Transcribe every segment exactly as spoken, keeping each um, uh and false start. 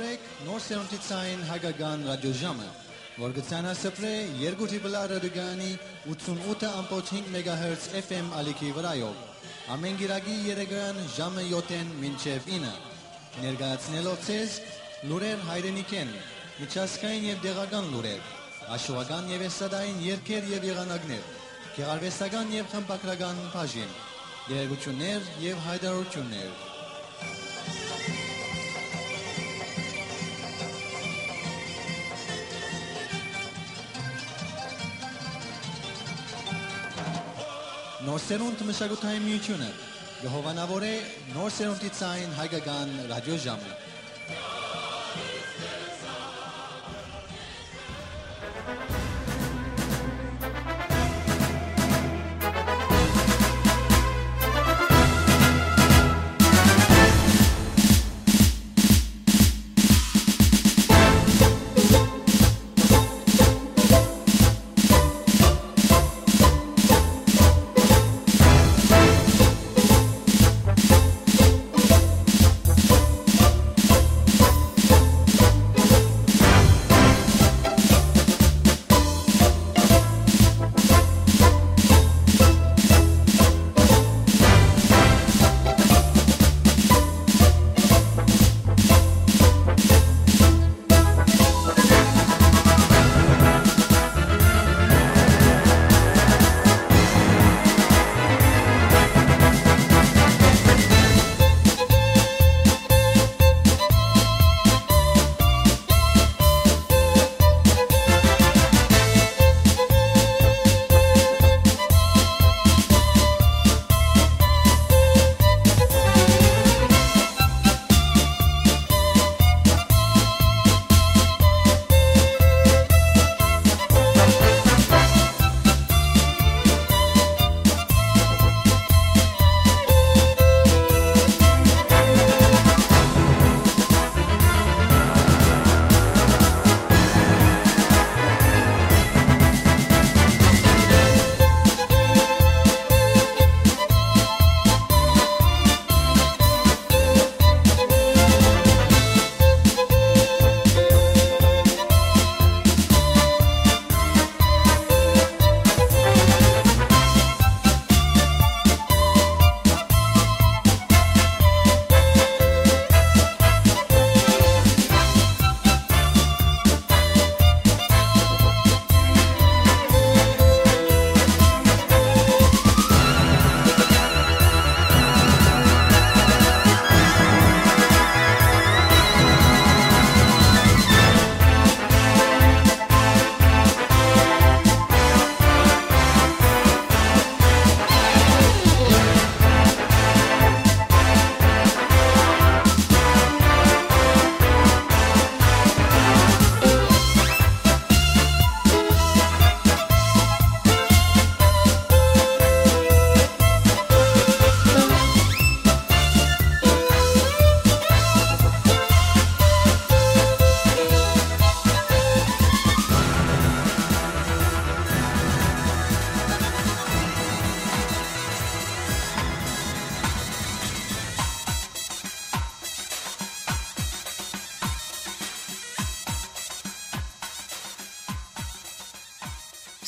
Նոր սերունդի ցային հայկական ռադիոժամը, որ կը ցանասպրէ երկու դիպլա ռադիոկայանի ութսունութ ըմբոց հինգ մեգահերց F M ալիքի վրայով, ամէն կիրակի երեկոյեան ժամը յոթ մինչեւ ինը, ներկայացնելով ձեզ լուրեր հայրենիքէն, միջազգային եւ տեղական լուրեր, աշուական եւ էսթատային երգեր եւ եղանակներ, գեղարուեստական եւ խմբագրական բաժին, տեղեկութիւններ եւ յայտարարութիւններ։ Նոր սերունդ մշակութային միութիւնը կը հովանաւորէ նոր սերունդի ցային հայկական ռադիոժամը։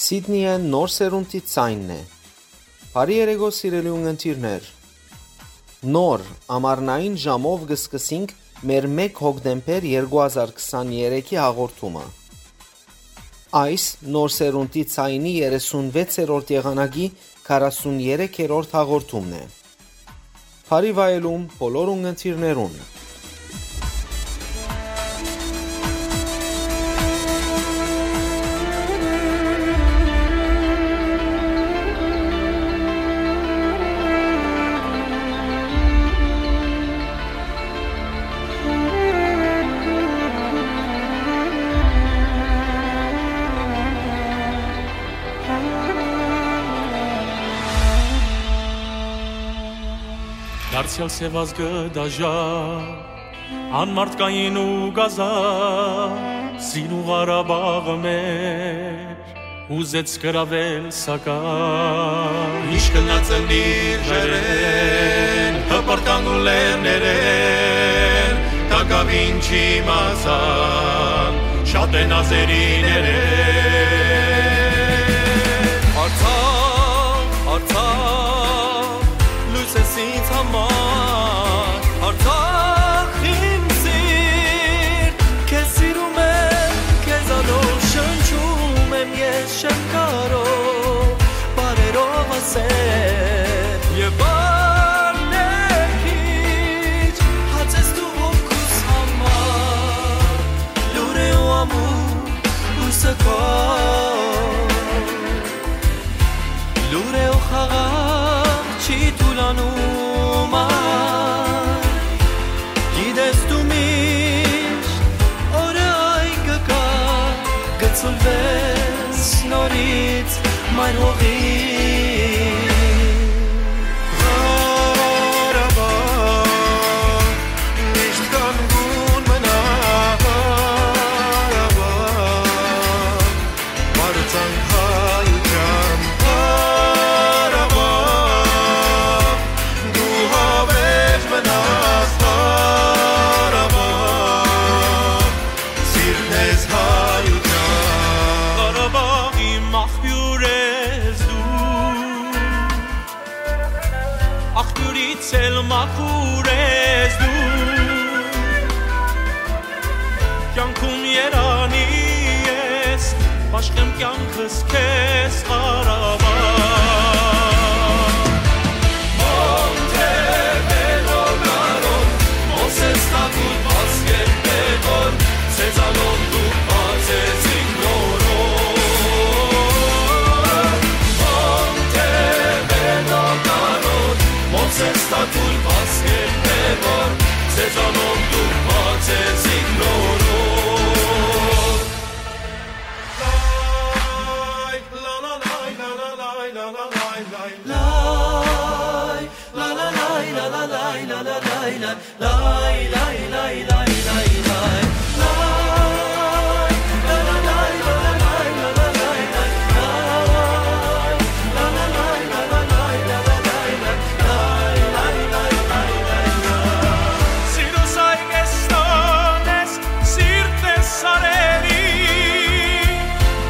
Սիդնիը նոր սերունդի ցայնն է։ Բարի երեկո, սիրելի ունգընտիրներ։ Նոր, ամառնային ժամով կը սկսենք մեր մէկ հոկտեմբեր երկու հազար քսաներեքի հաղորդումը։ Այս նոր սերունդի ցայնի երեսունվեցերորդ եղանակի քառասուներեքերորդ հաղորդումն է։ Բարի վայելում բոլոր ունգընտիրներուն։ Դարձեալ սեւազգը դաժա, անմարդկային ու կազա, սին ու Ղարաբաղը մեր, ուզեց գրավել սակայն։ Միշտ գնացել իր ժայռերէն, հպարտան ու լեռներէն, տակ Ав ինչի մազան, շատ են ազերիները։ Արցախ, Արցախ, լույս ես ինձ համար, Արցախ իմ սիրտ, քեզ սիրում եմ, քեզանով շնչում եմ ես, չեմ կարող բառերով ասել, եւ բառներ քիչ, հաց ես դու հոգուս համար, լուր է ու ամուր, լույսը քո, լուր է ու խաղաղ չի թուլանում այ, գիտես դու միշտ օրը այ կգա, կցուլվես նորից մայր հողի։ Ղարաբաղ, միշտ կանգուն մնա Ղարաբաղ, պարծանք հայութեան Ղարաբաղ, դու հավերժ մնաս Ղարաբաղ, սիրտներս հայութեան։ Ղարաբաղի մախբիւր ես դու, աղբիւրից էլ մաքուր ես դու, կյանքում երանի ես, բաշխեմ կյանքս քեզ, Ղարաբաղ։ Մոնտեվերնո գարոն, Մովսես Թագուտ, Պասկեր Պետրոն, Սեզանոն դուք բացեցիք նորոն։ Մոնտեվերնո գարոն, Մովսես Թագուտ, Պասկեր Պետրոն, Սեզանոն դուք բացեցիք նորոն։ Սիրուս այ կեստանես, սիրտս արերի,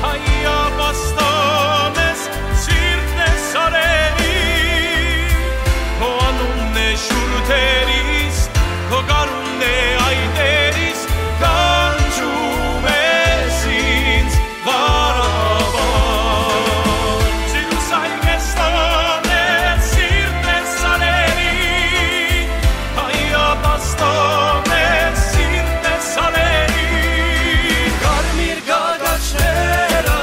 հայ ապաստանես, սիրտս արերի, քո անունն է շուրթերիս, քո գարունն է այտերիս, կանչում ես ինձ, Ղարաբաղ։ Սիրուս այ կեստանես, սիրտս արերի, հայ ապաստան ես, սիրտս արերի։ Կարմիր գագաչները,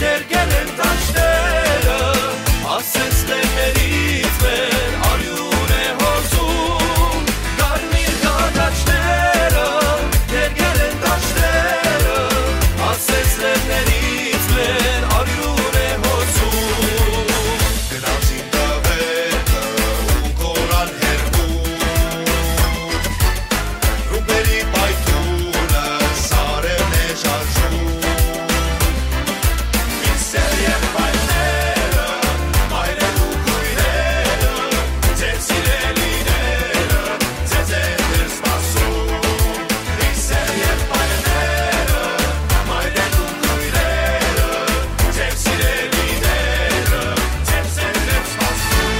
ներկել են դաշտերը, ասես լեռներից մեր արիւն է հոսում։ Կարմիր գագաչները, ներկել են դաշտերը, ասես լեռներից մեր արիւն է հոսում։ Գնացին տղերքը ու կորան հեռվում, ռումբերի պայթյունը սարերն է շարժում։ Իմ սեր եղբայրները, մայրեր ու քույրերը, ձեր սիրելիները, ձեզ է դեռ սպասում։ Իմ սեր եղբայրները, մայրեր ու քույրերը, ձեր սիրելիները, ձեզ է դեռ սպասում։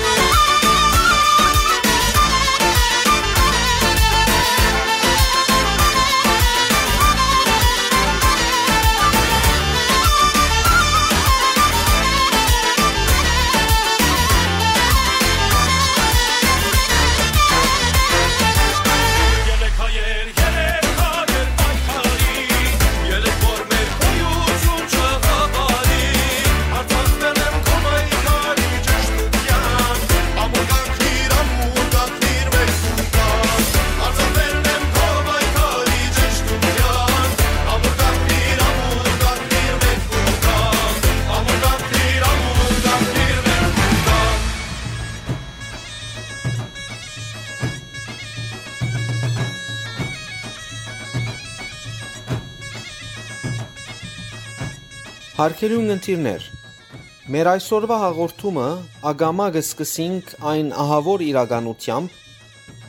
Հարգելի ունգընտիրներ, մեր այսօրվա հաղորդումը ակամայ կը սկսենք այն ահաւոր իրականութեամբ,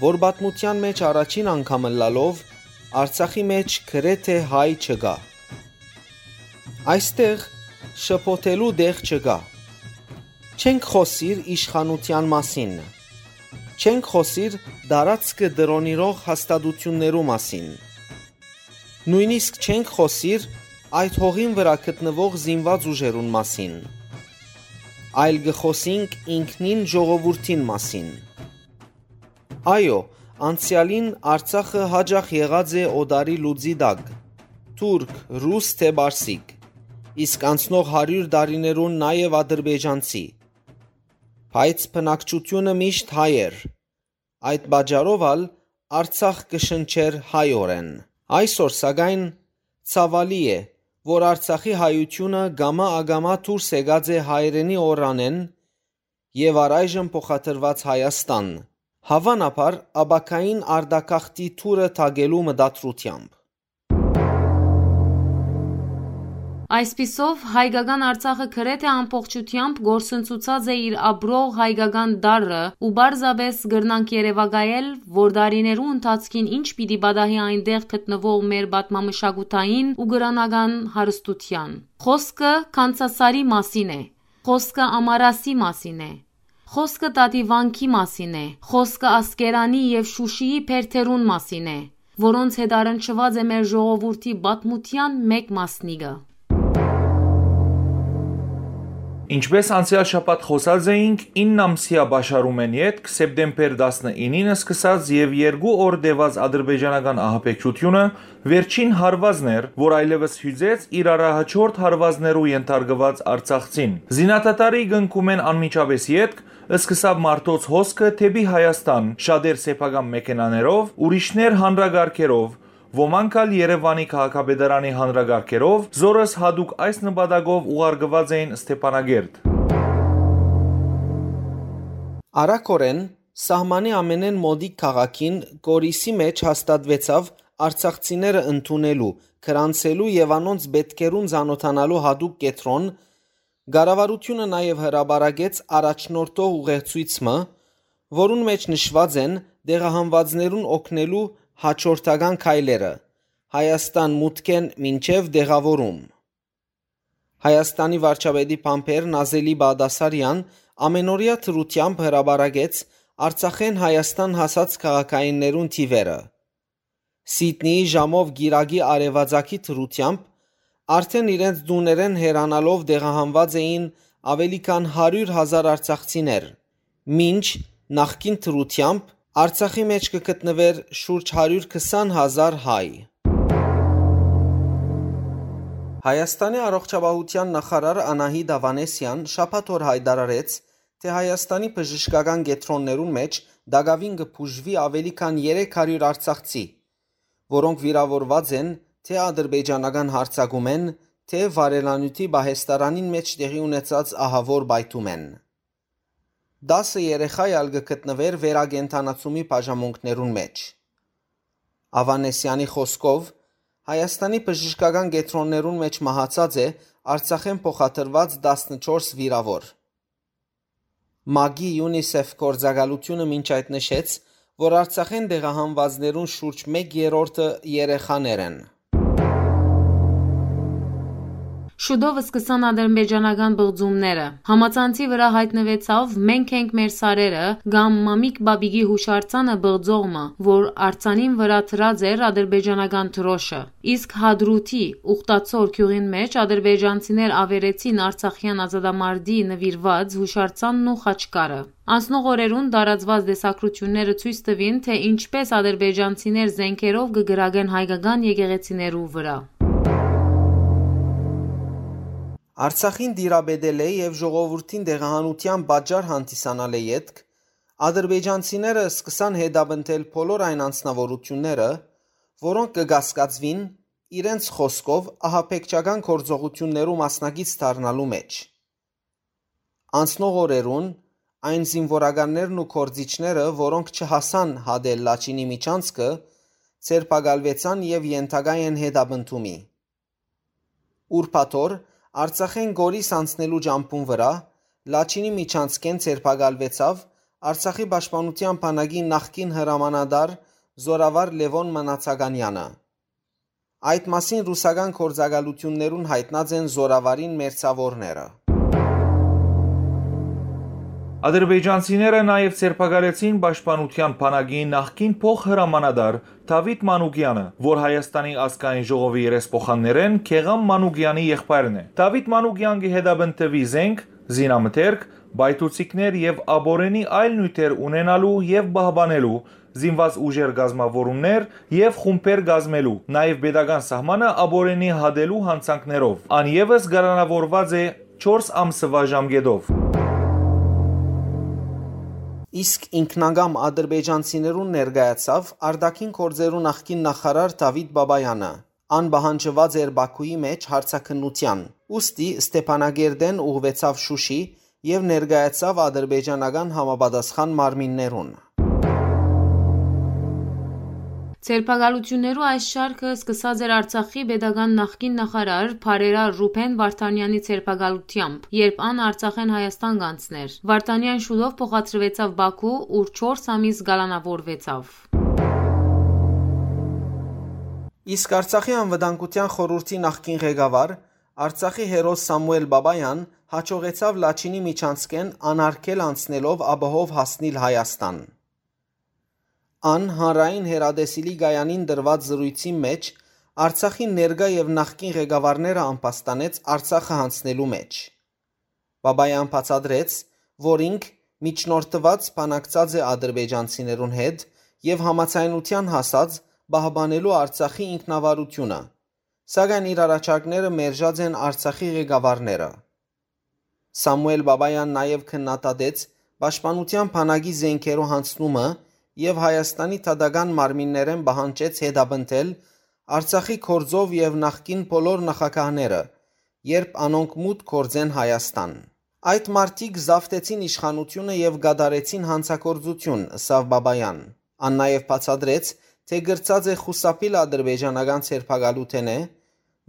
որ պատմութեան մէջ առաջին անգամ ըլլալով Արցախի մէջ գրեթէ հայ չկայ։ Այստեղ շփոթելու տեղ չկայ։ Չենք խօսիր իշխանութեան մասին։ Չենք խօսիր տարածքը տրոնիրող հաստատութիւններու մասին։ Նոյնիսկ չենք խօսիր այդ հողին վրայ գտնուող զինուած ուժերուն մասին, այլ կը խօսինք ինքնին ժողովուրդին մասին։ Այո, անցեալին Արցախը յաճախ եղած է օտարի լուծի տակ, թուրք, ռուս թէ պարսիկ, իսկ անցնող հարիւր տարիներուն նաեւ ադրբեջանցի։ Բայց բնակչութիւնը միշտ հայ էր։ Այդ պատճառով ալ Արցախ կը շնչէր հայօրէն։ Այսօր, սակայն, ցաւալի է, որ Արցախի հայութիւնը կամա ակամա դուրս եկած է հայրենի օրրանէն եւ առայժմ փոխադրուած Հայաստան, հաւանաբար ապագային արտագաղթի թուրը թակելու մտադրութեամբ։ Այսպիսով, հայկական Արցախը գրեթէ ամբողջութեամբ կորսնցուցած է իր ապրող հայկական տարրը ու պարզապէս կրնանք երեւակայել, որ տարիներու ընթացքին ինչ պիտի պատահի այնտեղ գտնուող մեր պատմամշակութային ու կրօնական հարստութեան։ Խոսքը Քանցասարի մասին է, խոսքը Ամարասի մասին է, խոսքը Տատիվանքի մասին է, խոսքը Ասկերանի եւ Շուշիի բերդերուն մասին է, որոնց հետ առնչուած է մեր ժողովուրդի պատմութեան մէկ մասնիկը։ Ինչպէս անցեալ շաբաթ խօսած էինք, ինն ամսեայ պաշարումէն ետք, սեպտեմբեր տասնինին սկսած եւ երկու օր տեւած ադրբեջանական ահաբեկչութիւնը վերջին հարուածն էր, որ այլեւս յուծեց իր առաջնորդ հարուածներու ենթարկուած արցախցին։ Զինադադարի կնքումէն անմիջապէս ետք սկսաւ մարդոց հոսքը դէպի Հայաստան, շատեր սեփական մեքենաներով, ուրիշներ հանրակառքերով, ոմանք ալ Երեւանի քաղաքապետարանի հանրակառքերով, զորս յատուկ այս նպատակով ուղարկուած էին Ստեփանակերտ։ Արագօրէն սահմանի ամենէն մօտիկ քաղաքին՝ Կորիսի մէջ հաստատուեցաւ արցախցիները ընդունելու, գրանցելու եւ անոնց պէտքերուն ծանօթանալու յատուկ կեդրոն, կառավարութիւնը նաեւ հրապարակեց առաջնորդող ուղեցոյց մը, որուն մէջ նշուած են տեղահանուածներուն օգնելու յաջորդական քայլերը՝ Հայաստան մուտքէն մինչեւ տեղաւորում։ Հայաստանի վարչապետի բանբեր Նազելի Բաղդասարեան ամենօրեայ դրութեամբ հրապարակեց Արցախէն Հայաստան հասած քաղաքայիններուն թիւերը։ Սիդնիի ժամով կիրակի արեւածագի դրութեամբ արդէն իրենց տուներէն հեռանալով տեղահանուած էին աւելի քան հարիւր հազար արցախցիներ, մինչ նախկին դրութեամբ Արցախի մէջ կը գտնուէր շուրջ հարիւր քսան հազար հայ։ Հայաստանի առողջապահութեան նախարար Անահիտ Ավանեսեան շաբաթ օր յայտարարեց, թէ Հայաստանի բժշկական կեդրոններուն մէջ տակաւին կը բուժուի աւելի քան երեք հարիւր արցախցի, որոնք վիրաւորուած են թէ ադրբեջանական յարձակումէն, թէ վարելանիւթի պահեստարանին մէջ տեղի ունեցած ահաւոր պայթումէն։ Տասը երեխայ ալ կը գտնուէր վերակենդանացումի բաժամունքներուն մէջ։ Ավանեսեանի խօսքով, Հայաստանի բժշկական կեդրոններուն մէջ մահացած է Արցախէն փոխադրուած տասնչորս վիրաւոր։ մագի UNICEF գործակալութիւնը մինչ այդ նշեց, որ Արցախէն տեղահանուածներուն շուրջ մէկ երրորդը երեխաներ են։ Շուտով սկսան ադրբեջանական պղծումները։ Համացանցի վրայ յայտնուեցաւ «Մենք ենք մեր սարերը» կամ «Մամիկ Բաբիկի» յուշարձանը պղծող մը, որ արձանին վրայ դրած էր ադրբեջանական դրոշը։ Իսկ Հադրութի Ուխտացոր գիւղին մէջ ադրբեջանցիներ աւերեցին արցախեան ազատամարտի նուիրուած յուշարձանն ու խաչքարը։ Անցնող օրերուն տարածուած տեսագրութիւնները ցոյց տուին, թէ ինչպէս ադրբեջանցիներ զէնքերով կը կրակեն հայկական եկեղեցիներու վրայ։ Արցախին տիրապետելէ եւ ժողովուրդին տեղահանութեան պատճառ հանդիսանալէ ետք, ադրբեջանցիները սկսան հետապնդել բոլոր այն անձնաւորութիւնները, որոնք կը կասկածուին, իրենց խօսքով, ահաբեկչական գործողութիւններու մասնակից դառնալու մէջ։ Անցնող օրերուն այն զինուորականներն ու գործիչները, որոնք չհասան հատել Լաչինի միջանցքը, ձերբակալուեցան եւ ենթակայ են հետապնդումի։ Ուրբաթօր Արցախէն Գորիս անցնելու ճամբուն վրայ Լաչինի միջանցքէն ձերբակալուեցաւ Արցախի պաշտպանութեան բանակի նախկին հրամանատար զօրավար Լեւոն Մնացականյանը։ Այդ մասին ռուսական գործակալութիւններուն յայտնած են զօրավարին մերձաւորները։ Ադրբեջանցիները նաեւ ձերբակալեցին Պաշտպանութեան բանակի նախկին փոխհրամանատար Դավիթ Մանուկեանը, որ Հայաստանի ազգային ժողովի երեսփոխաններէն Գեղամ Մանուկեանի եղբայրն է։ Դավիթ Մանուկեան կը հետապնդուի զենք, զինամթերք, պայթուցիկներ եւ ապօրինի այլ նիւթեր ունենալու եւ պահպանելու, զինուած ուժեր կազմաւորումներ եւ խումբեր կազմելու, նաեւ պետական սահմանը ապօրինի հատելու յանցանքներով։ Ան եւս կալանաւորուած է չորս ամսուայ ժամկէտով։ Իսկ ինքնակամ ադրբեջանցիներուն ներկայացաւ արտաքին գործերու նախկին նախարար Դավիթ Բաբայանը։ Ան պահանջուած էր Բաքուի մէջ հարցաքննութեան, ուստի Ստեփանագերդէն ուղղուեցաւ Շուշի եւ ներկայացաւ ադրբեջանական համապատասխան մարմիններուն։ Ձերբակալութիւններու այս շարքը սկսած էր Արցախի պետական նախկին նախարար բարերար Ռուբեն Վարդանեանի ձերբակալութեամբ, երբ ան Արցախէն Հայաստան կանցներ։ Վարդանեան շուտով փոխադրուեցաւ Բաքու, ուր չորս ամիս կալանաւորուեցաւ։ Իսկ Արցախի անվտանգութեան խորհուրդի նախկին ղեկավար, Արցախի հերոս Սամուել Բաբայան յաջողեցաւ Լաչինի միջանցքէն անարգել անցնելով աբահով հասնիլ Հայաստան։ Ան հանրային հեռատեսիլի կայանին տրուած զրոյցին մէջ Արցախի ներկայ եւ նախկին ղեկավարները ամբաստանեց Արցախը յանցնելու մէջ։ Բաբայան բացատրեց, որ ինք միջնորդուած բանակցած է ադրբեջանցիներուն հետ եւ համաձայնութեան հասած պահպանելու Արցախի ինքնավարութիւնը, սակայն իր առաջարկները մերժած են Արցախի ղեկավարները։ Սամուել Բաբայան նաեւ քննադատեց պաշտպանութեան բանակի զենքերու յանցնումը եւ Հայաստանի դատական մարմիններէն պահանջեց հետապնդել Արցախի գործով եւ նախկին բոլոր նախագահները, երբ անոնք մուտք գործեն Հայաստան։ «Այդ մարդիկ զաւթեցին իշխանութիւնը եւ կատարեցին յանցագործութիւն», ըսաւ Բաբայան։ Ան նաեւ բացատրեց, թէ կրցած է խուսափիլ ադրբեջանական ձերբակալութենէ,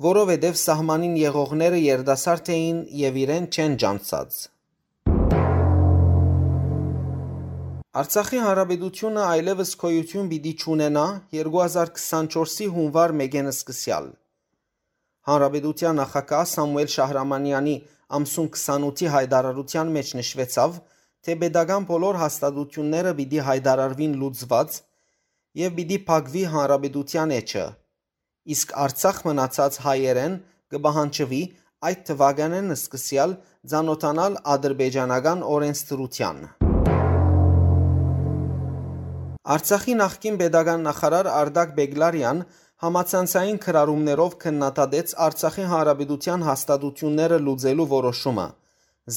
որովհետեւ սահմանին եղողները երիտասարդ էին եւ իրեն չեն ճանչցած։ Արցախի Հանրապետութիւնը այլեւս գոյութիւն պիտի չունենայ երկու հազար քսանչորսի յունուար մէկէն սկսեալ։ Հանրապետութեան նախագահ Սամուել Շահրամանեանի ամսուն քսանութի յայտարարութեան մէջ նշուեցաւ, թէ պետական բոլոր հաստատութիւնները պիտի յայտարարուին լուծուած եւ պիտի փակուի հանրապետութեան էջը, իսկ Արցախ մնացած հայերէն կը պահանջուի այդ թուականէն սկսեալ ծանօթանալ ադրբեջանական օրենսդրութեան։ Արցախի նախկին պետական նախարար Արտակ Բեգլարեան համացանցային գրառումներով քննադատեց Արցախի Հանրապետութեան հաստատութիւնները լուծելու որոշումը,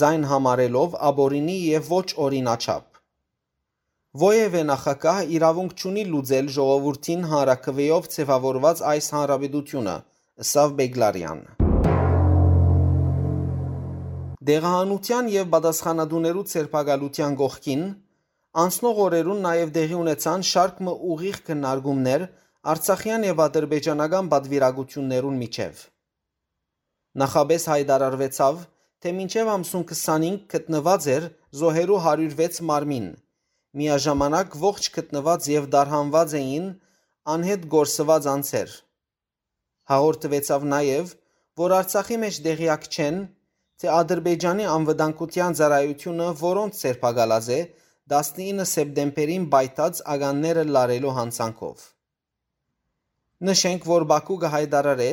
զայն համարելով ապօրինի եւ ոչ օրինաչափ։ Որեւէ նախագահ իրաւունք չունի լուծել ժողովուրդին հանրաքուէով ձեւաւորուած այս հանրապետութիւնը, ըսաւ Բեգլարեան։ Տեղահանութեան եւ պատասխանատուներու ձերբակալութեան կողքին, անցնող օրերուն նաեւ տեղի ունեցան շարք մը ուղիղ քննարկումներ արցախեան եւ ադրբեջանական պատվիրակութիւններուն միջեւ։ Նախապէս յայտարարուեցաւ, թէ մինչեւ ամսուն քսանհինգ գտնուած էր զոհերու հարիւր վեց մարմին, միաժամանակ ողջ գտնուած եւ տարհանուած էին անհետ կորսուած անձեր։ Հաղորդուեցաւ նաեւ, որ Արցախի մէջ տեղեակ չեն, թէ Ադրբեջանի անվտանգութեան ծառայութիւնը որոնց ձերբակալած է տասնինը սեպտեմբերին պայթած ականները լարելու յանցանքով։ Նշենք, որ Բաքու կը յայտարարէ,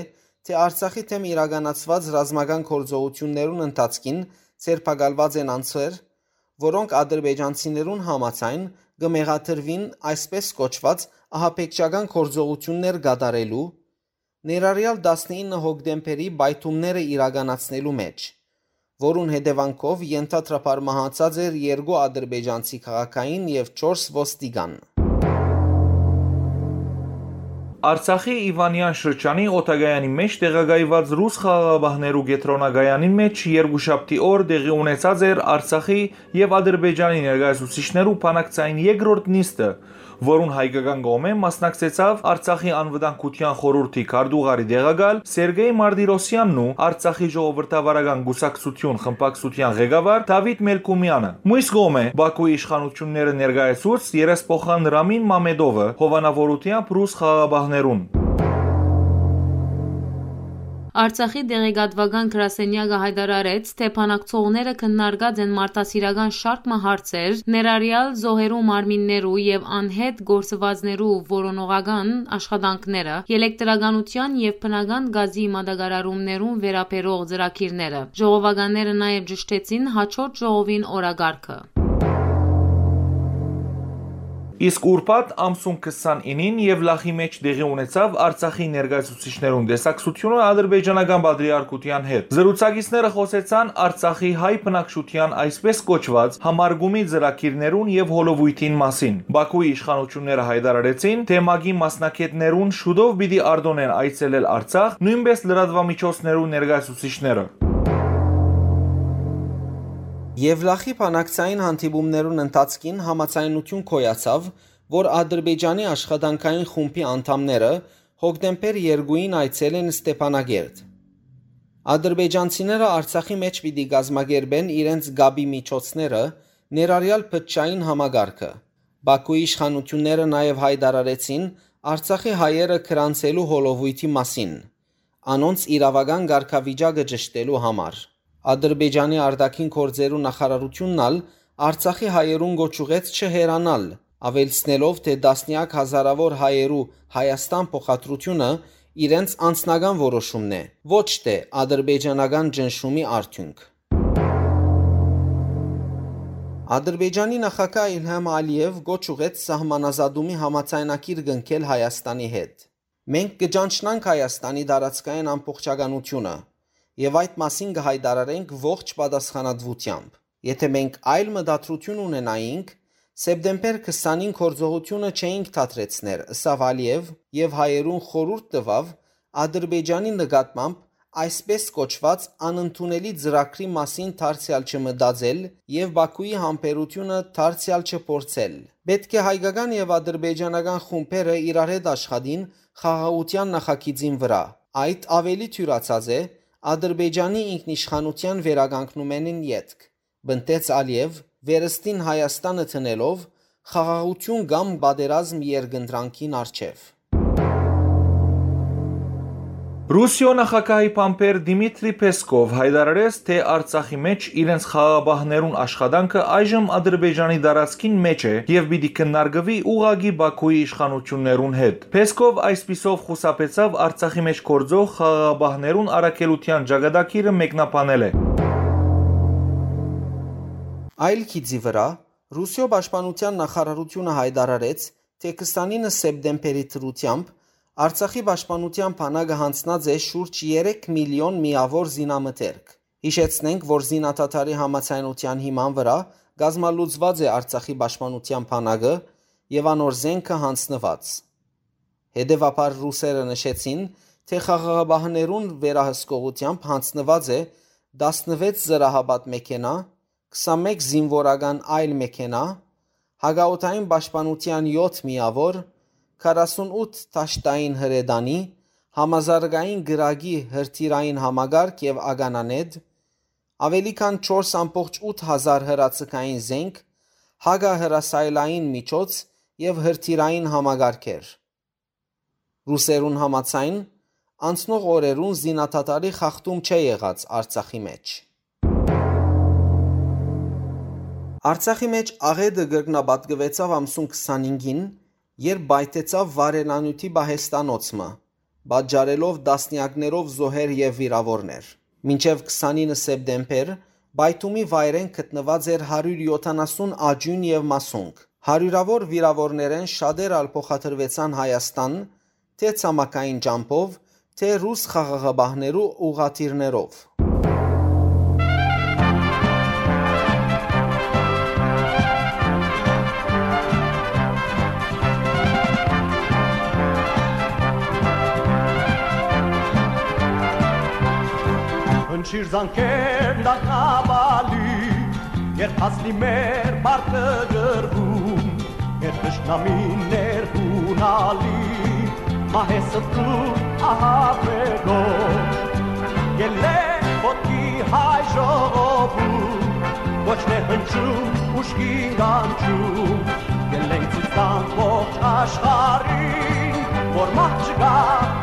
թէ Արցախի դէմ իրականացուած ռազմական գործողութիւններուն ընթացքին ձերբակալուած են անձեր, որոնք ադրբեջանցիներուն համաձայն կը մեղադրուին այսպէս կոչուած ահաբեկչական գործողութիւններ կատարելու, ներառեալ տասնինը հոկտեմբերի պայթումները իրականացնելու մէջ, որուն հետեւանքով ենթադրաբար մահացած էր երկու ադրբեջանցի քաղաքային եւ չորս ոստիկան։ Արցախի Իվանեան շրջանի օդակայանի մէջ տեղակայուած ռուս խաղաղապահներու կեդրոնակայանին մէջ երկուշաբթի օր տեղի ունեցած էր Արցախի եւ Ադրբեջանի ներկայացուցիչներու բանակցային երկրորդ նիստը, որուն հայկական կողմէ մասնակցեցաւ Արցախի անվտանգության խորհուրդի քարտուղարի տեղակալ Սերգեյ Մարտիրոսյանն ու Արցախի ժողովրդավարական կուսակցություն խմբակցության ղեկավար Դավիթ Մելքումյանը։ Մյուս կողմէ, Բաքուի իշխանությունները ներկայացուց երեսփոխան Ռամին Մամեդովը հովանավորութեամբ ռուս խաղաղապահներուն։ Արցախի տեղեկատուական գրասենյակը յայտարարեց, թէ բանակցողները քննարկած են մարդասիրական շարք մը հարցեր, ներառյալ զոհերու մարմիններու եւ անհետ գործուածներու որոնողական աշխատանքները, ելեկտրականութեան եւ բնական գազի մատակարարումներուն վերաբերող ծրագիրները։ Ժողովականները նաեւ ճշդեցին հաջորդ ժողովին օրակարգը։ Իսկ ուրբաթ ամսուն քսանինին Եվլախի մէջ տեղի ունեցաւ Արցախի ներկայացուցիչներուն տեսակցութիւնը ադրբեջանական պատրիարքութեան հետ։ Զրուցակիցները խօսեցան Արցախի հայ բնակչութեան այսպես կոչուած համարգումի ծրագիրներուն եւ հոլովոյթին մասին։ Բաքուի իշխանութիւնները յայտարարեցին, թէ մակի մասնագէտներուն շուտով պիտի արտօնեն այցելել Արցախ, նոյնպէս լրատուամիջոցներու ներկայացուցիչները։ Եվլախի բանակցային հանդիպումներուն ընթացքին համաձայնութիւն գոյացաւ, որ Ադրբեջանի աշխատանքային խումբի անդամները հոկտեմբեր երկուին այցելեն Ստեփանագերդ։ Ադրբեջանցիները Արցախի մէջ պիտի կազմակերպեն իրենց կապի միջոցները, ներառյալ բջջային համակարգը։ Բաքուի իշխանութիւնները նաեւ յայտարարեցին Արցախի հայերը գրանցելու հոլովոյթի մասին, անոնց իրաւական կարգավիճակը ճշդելու համար։ Ադրբեջանի արտաքին գործերու նախարարութիւնն ալ Արցախի հայերուն կոչ ուղղեց չհեռանալ, աւելցնելով, թէ տասնեակ հազարաւոր հայերու Հայաստան փոխադրութիւնը իրենց անձնական որոշումն է, ոչ թէ ադրբեջանական ճնշումի արդիւնք։ Ադրբեջանի նախագահ Իլհամ Ալիեւ կոչ ուղղեց սահմանազատումի համաձայնագիր կնքել Հայաստանի հետ։ «Մենք կը ճանչնանք Հայաստանի տարածքային ամբողջականութիւնը եւ այդ մասին կը յայտարարենք ողջ պատասխանատուութեամբ։ Եթէ մենք այլ մտադրութիւն ունենայինք, սեպտեմբեր քսանին գործողութիւնը չէինք դադրեցներ», ըսաւ Ալիեւ եւ հայերուն խորհուրդ տուաւ Ադրբեջանի նկատմամբ այսպես կոչուած անընդունելի ծրագրի մասին դարձեալ չմտածել եւ Բաքուի համբերութիւնը դարձեալ չփորձել։ Պէտք է հայկական եւ ադրբեջանական խումբերը իրար հետ աշխատին խաղաղութեան նախագիծին վրայ։ Այդ աւելի թիւրացած է Ադրբեջանի ինքնիշխանութեան վերականգնումէնին ետք, պնդեց Ալիեւ, վերստին Հայաստանը դնելով խաղաղութիւն կամ պատերազմ երկընտրանքին առջեւ։ Ռուսիոյ նախագահի բանբեր Դիմիտրի Պեսկով յայտարարեց, թէ Արցախի մէջ իրենց խաղաղապահներուն աշխատանքը այժմ Ադրբեջանի տարածքին մէջ է եւ պիտի քննարկուի ուղղակի Բաքուի իշխանութիւններուն հետ։ Պեսկով այսպիսով խուսափեցաւ Արցախի մէջ գործող խաղաղապահներուն առաքելութեան ճակատագիրը մեկնաբանելէ։ Այլ գիծի վրայ, Ռուսիոյ պաշտպանութեան նախարարութիւնը յայտարարեց, թէ քսանինը սեպտեմբերի դրութեամբ Արցախի պաշտպանութեան բանակը յանձնած է շուրջ երեք միլիոն միաւոր զինամթերք։ Յիշեցնենք, որ զինադադարի համաձայնութեան հիման վրայ կազմալուծուած է Արցախի պաշտպանութեան բանակը եւ անոր զէնքը յանձնուած։ Հետեւաբար ռուսերը նշեցին, թէ խաղաղապահներուն վերահսկողութեամբ յանձնուած է տասնվեց զրահապատ մեքենայ, քսանմէկ զինուորական այլ մեքենայ, հակաօդային պաշտպանութեան եօթ միաւոր, քառասունութ դաշտային հրետանի, համազարգային կրակի հրթիռային համակարգ եւ ականանետ, աւելի քան չորս ամբողջ ութ հազար հրաձգային զենք, հակահրասայլային միջոց եւ հրթիռային համակարգեր։ Ռուսերուն համաձայն, անցնող օրերուն զինադադարի խախտում չէ եղած Արցախի մէջ։ Արցախի մէջ աղէտը կրկնապատկուեցաւ ամսուն քսանհինգին, երբ պայթեցաւ վառելանիւթի պահեստանոց մը, պատճառելով տասնեակներով զոհեր եւ վիրաւորներ։ Մինչեւ քսանինը սեպտեմբեր պայթումի վայրէն գտնուած էր հարիւր եօթանասուն աճիւն եւ մասունք։ Հարիւրաւոր վիրաւորներէն շատեր ալ փոխադրուեցան Հայաստան, թէ ցամաքային ճամբով, թէ ռուս խաղաղապահներու ուղղաթիռներով։ Հնչիր զանգեր դակնաբալի, երբ հասնի մեր պարտը գրկում, երբ թշնամին ներհունալի, մահե ստրուկ ահաբեկող, ելլե ոտքի հայ ժողովուրդ, կոչներ հնչում, ուժգին կանչում, ելենք ցույց տանք ողջ աշխարհին, որ մահ չկայ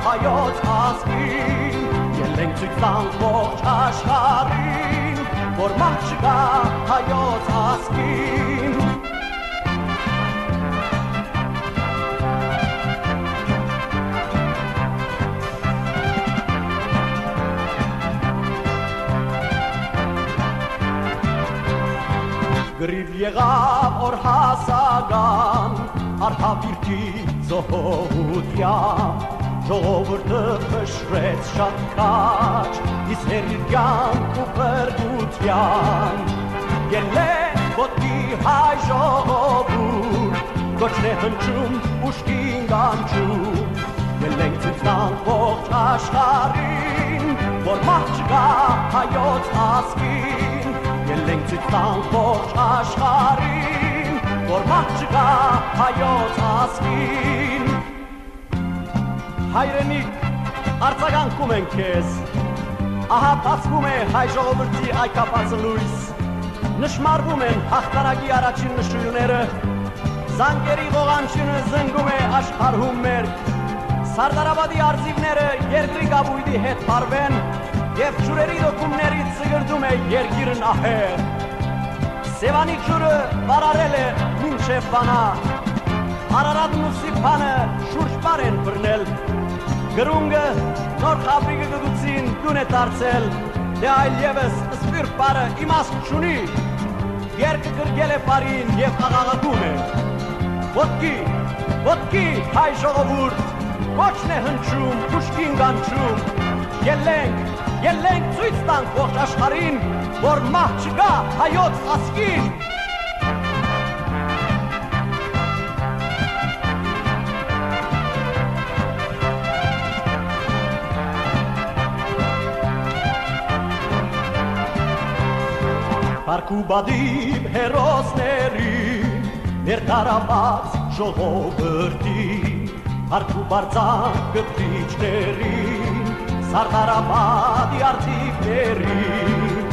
հայոց ազգին, ելենք Մենք ցոյց տանք ողջ աշխարհին, որ մահ չկայ հայոց ազգին։ Կռիւ եղաւ օրհասական, արհաւիրքի զոհուտեան, ժողովուրդը փշրեց շատ քաջ, իսկ հերիքեան ու փրկութեան։ Ելլե ոտքի հայ ժողովուրդ, կոչն է հնչում ուշքին կանչում։ Ելենք ցոյց տանք ողջ աշխարհին, որ մահ չկայ հայոց ազգին։ Ելենք ցոյց տանք ողջ աշխարհին, որ մահ չկայ հայոց ազգին։ Հայրենիք, արձագանքում ենք քեզ։ Ահա բացվում է հայ ժողովրդի այգաբացը լոյս։ Նշմարվում են յաղթանակի առաջին նշոյլները։ Զանգերի ղողանջինը զնգում է աշխարհում մերկ։ Սարդարապատի արծիվները երկրի կապոյտի հետ փարուեն, եւ ջուրերի դոկումներից զգրդում է երկիրն ահեղ։ Սեւանի ջուրը վարարել է մինչեւ Վանա։ Արարատն ու Սիփանը շուրջպար են բռնել։ Կրունկը, Նոր Խաբրիկը գտուցին տուն է դարձել, դե այլեւս սփիւռ բառը իմաստ չունի։ Երկը գրկել է պարին եւ աղաղակում է. «Ոտքի, ոտքի, հայ ժողովուրդ, կոչն է հնչում, ուշքին կանչում։ Ելենք, ելենք, ցոյց տանք ողջ աշխարհին, որ մահ չկայ հայոց ազգին»։ Փառք ու պատիւ հերոսների, մեր տարապած ժողովրդին, փառք ու պարծանք կտրիչներին, Սարդարապատի արծիվներին։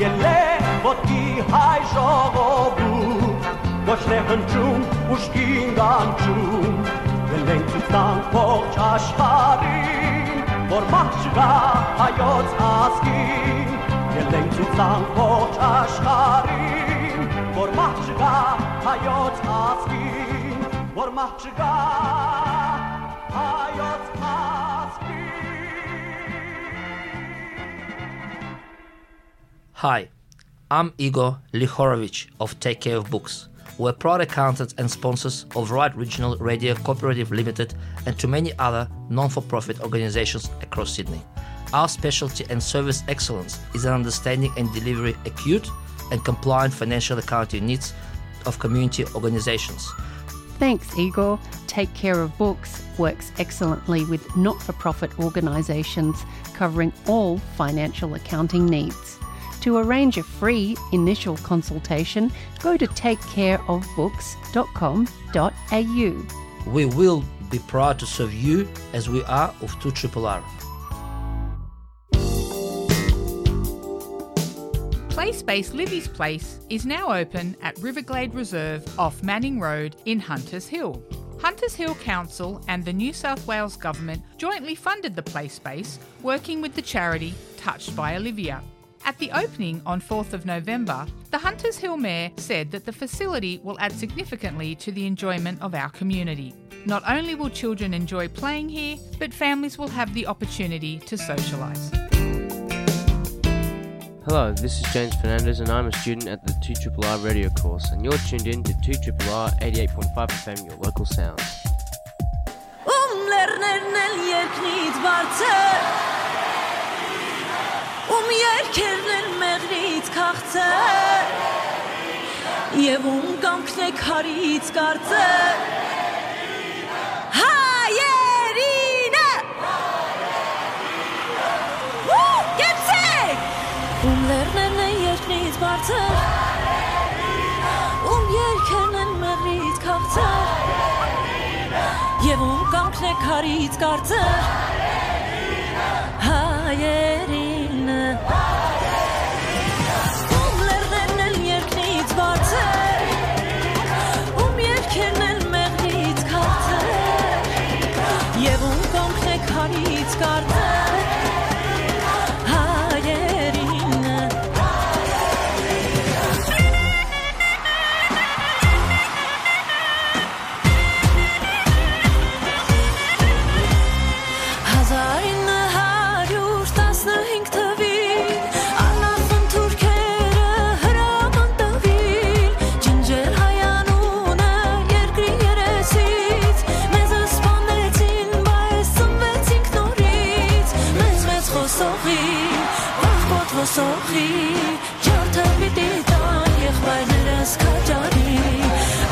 Ելլե ոտքի հայ ժողովուրդ, կոչն է հնչում, ուշքին կանչում։ Ելենք ցոյց տանք ողջ աշխարհին, որ մահ չկայ հայոց ազգին։ Ելենք ցոյց տանք ողջ աշխարհին, որ մահ չկայ հայոց ազգին, որ մահ չկայ հայոց ազգին։ Hi, I'm Igor Lihorovich of Take Care of Books. We're proud accountants and sponsors of Right Regional Radio Cooperative Limited and to many other non-for-profit organizations across Sydney. Our specialty and service excellence is in understanding and delivery acute and compliant financial accounting needs of community organizations. Thanks, Igor. Take Care of Books works excellently with not-for-profit organisations covering all financial accounting needs. To arrange a free initial consultation, go to take care of books dot com dot a u. We will be proud to serve you as we are of two triple R. Play Space Livy's Place is now open at Riverglade Reserve off Manning Road in Hunters Hill. Hunters Hill Council and the New South Wales Government jointly funded the play space, working with the charity Touched by Olivia. At the opening on fourth of November, the Hunters Hill Mayor said that the facility will add significantly to the enjoyment of our community. Not only will children enjoy playing here, but families will have the opportunity to socialise. Hello, this is James Fernandez, and I'm a student at the two triple R radio course, and you're tuned in to two triple R eighty-eight point five F M, your local sound. Ում լեռներն են երկնից բարձր, ում երկերն են մեղրից քաղցր, եւ ում կամքն է քարից կարծր։ Հայերինը! Ու կեցեք! Ում լեռներն են երկրից բարձր, ում երկերն են մեղրից քաղցր, եւ ում կամքն է քարից կարծր։ Հայերինը։ Ում լեռներն են երկրից բարձր, ում երկերն են մեղրից քաղցր, եւ ում կամքն է քարից կարծր։ Սոխի ջարդը պիտի տան եղբայրներս քաջարի,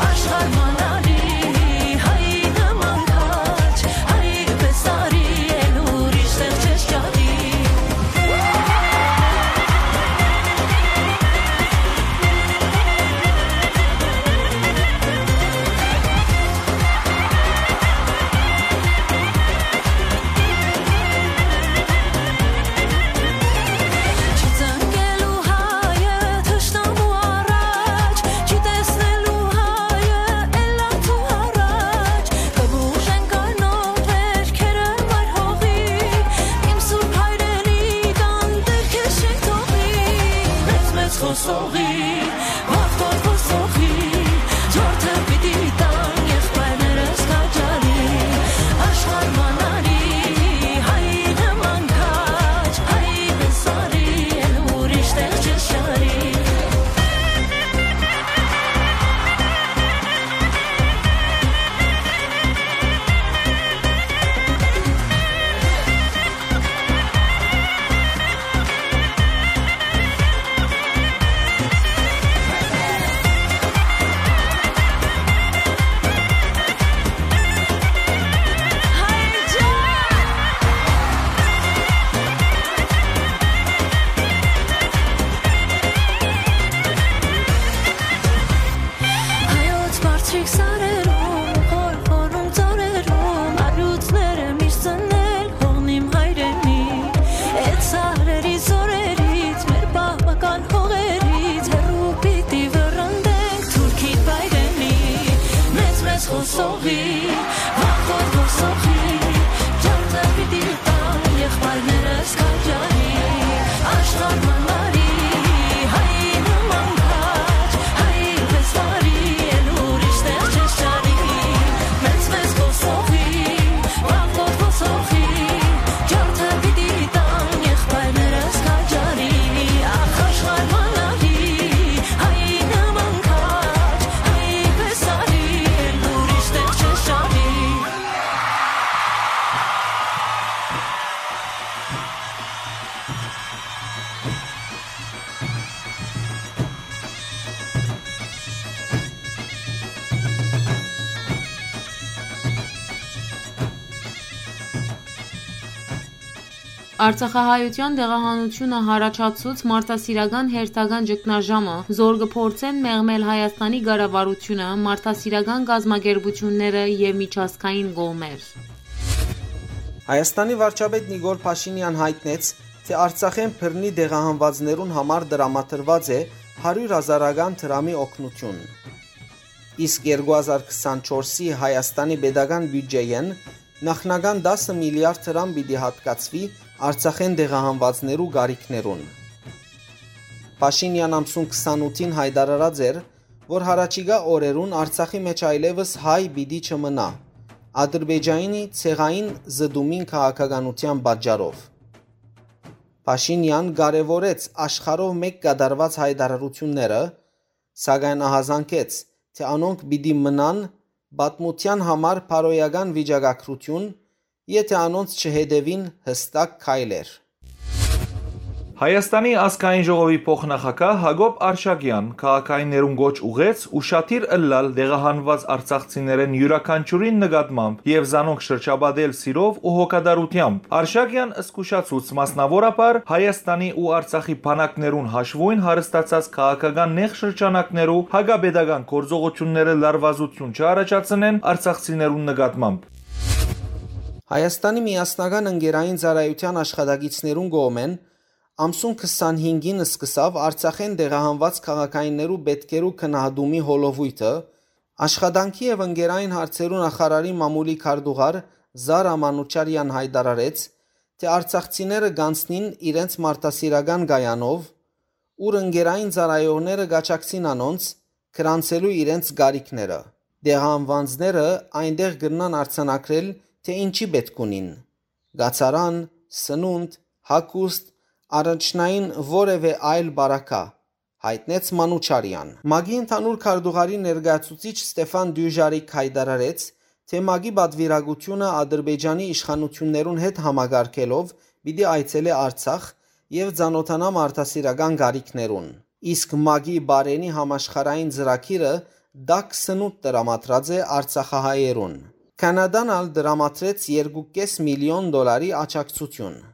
աշխարհ մանալի հայ նման քաջ, հայ պես արի, էլ ուրիշ տեղ չես ճարի։ Չի ծնկելու հայը թշնամու առաջ, չի տեսնելու հայը ելանցու առաջ, կը բուժեն կարմիր վերքերը մայր հողի, իմ սուրբ հայրենի տան դիրքը շեն թողի, մեծ-մեծ խոսողի, վախտոտ խոսողի, ջարդը պիտի տան եղբայրներս քաջարի, աշխարհ մանալի հայ նման քաջ, հայ պես արի, էլ ուրիշ տեղ չես ճարի։ Հայոց բարձրիկ սարերում, խորխորում ծառերում, արիւծները միշտ ծնել հողն իմ հայրենի։ Այդ սարերի զօրերից, մեր պապական հողերից հեռու պիտի վռնդենք թուրքին Բայդենի, մեծ-մեծ խոսողի, վախտոր խոսողի, ջարդը պիտի տան եղբայրներս քաջարի, աշխարհ մանալի հայ նման քաջ, հայ պես արի, էլ ուրիշ տեղ չես ճարի, մեծ-մեծ խոսողի, վախտոր խոսողի, ջարդը պիտի տան եղբայրներս քաջարի, ախ, աշխարհ մանալի հայ նման քաջ, հայ պես արի, էլ ուրիշ տեղ չես ճարի։ Արցախահայութեան տեղահանութիւնը յառաջացուց մարդասիրական հերթական ճգնաժամը, զոր կը փորձեն մեղմել Հայաստանի կառավարութիւնը, մարդասիրական կազմակերպութիւնները եւ միջազգային կողմեր։ Հայաստանի վարչապետ Նիկոլ Փաշինեան յայտնեց, թէ Արցախէն բռնի տեղահանուածներուն համար տրամադրուած է հարիւր հազարական դրամի օգնութիւն։ Իսկ երկու հազար քսանչորսի Հայաստանի պետական բիւտճէէն նախնական տասը միլիարդ դրամ պիտի յատկացուի Արցախէն տեղահանուածներու կարիքներուն։ Փաշինեան ամսուն քսանութին յայտարարած էր, որ յառաջիկայ օրերուն Արցախի մէջ այլեւս հայ պիտի չմնայ, Ադրբեջանի ցեղային զտումին քաղաքականութեան պատճառով։ Փաշինեան կարեւորեց աշխարհով մէկ կատարուած յայտարարութիւնները, սակայն ահազանգեց, թէ անոնք պիտի մնան պատմութեան համար բարոյական վիճակագրութիւն, եթէ անոնց չհետեւին յստակ քայլեր։ Հայաստանի ազգային ժողովի փոխնախագահ Հակոբ Արշակեան քաղաքայիններուն կոչ ուղղեց ուշադիր ըլլալ տեղահանուած արցախցիներէն իւրաքանչիւրին նկատմամբ եւ զանոնք շրջապատել սիրով ու հոգատարութեամբ։ Արշակեան զգուշացուց մասնաւորաբար Հայաստանի ու Արցախի բանակներուն հաշուոյն հարստացած քաղաքական նեղ շրջանակներու հակապետական գործողութիւնները լարուածութիւն չառաջացնեն արցախցիներուն նկատմամբ։ Հայաստանի միասնական ընկերային ծառայութեան աշխատակիցներուն կողմէն ամսուն քսանհինգին սկսաւ Արցախէն տեղահանուած քաղաքայիններու պէտքերու գնահատումի հոլովոյթը, աշխատանքի եւ ընկերային հարցերու նախարարի մամուլի քարտուղար Զարա Մանուչարեան յայտարարեց, թէ արցախցիները կանցնին իրենց մարդասիրական կայանով, ուր ընկերային ծառայողները կ'աջակցին անոնց՝ գրանցելու իրենց կարիքները։ Տեղահանուածները այնտեղ կրնան արձանագրել, թէ ինչի պէտք ունին՝ կացարան, սնունդ, հագուստ, առաջնային որեւէ այլ պարագա, յայտնեց Մանուչարեան։ ՄԱԿ-ի ընդհանուր քարտուղարի ներկայացուցիչ Ստեֆան Դյուժարիկ յայտարարեց, թէ ՄԱԿ-ի պատվիրակութիւնը Ադրբեջանի իշխանութիւններուն հետ համակարգելով պիտի այցելէ Արցախ, եւ ծանօթանամ արտասիրական կարիքներուն։ Իսկ մագի բարենի համաշխարհային ծրագիրը տաք սնունդ տրամադրած է արցախահայերուն։ Կանադան ալ տրամադրեց երկու կէս միլիոն դոլարի աջակցություն։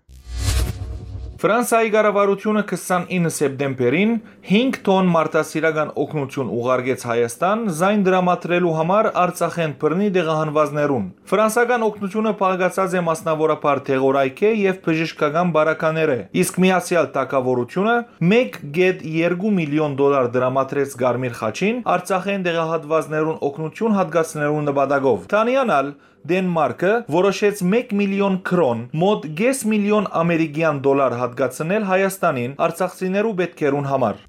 Ֆրանսայի կառավարութիւնը քսանինը սեպտեմբերին հինգ թոն մարդասիրական օգնութիւն ուղարկեց Հայաստան, զայն տրամադրելու համար Արցախէն բռնի տեղահանուածներուն։ Ֆրանսական օգնութիւնը փակցած է մասնաւորաբար դեղորայքէ եւ բժշկական պարագաներէ, իսկ Միացեալ Թագաւորութիւնը մէկ կէտ երկու միլիոն դոլար տրամադրեց Կարմիր խաչին՝ Արցախէն տեղահանուածներուն օգնութիւն յատկացնելու նպատակով։ Դանիան ալ Դենմարկը որոշեց մէկ միլիոն քրոն, մօտ կէս միլիոն ամերիկեան դոլար յատկացնել Հայաստանին արցախցիներու պէտքերուն համար։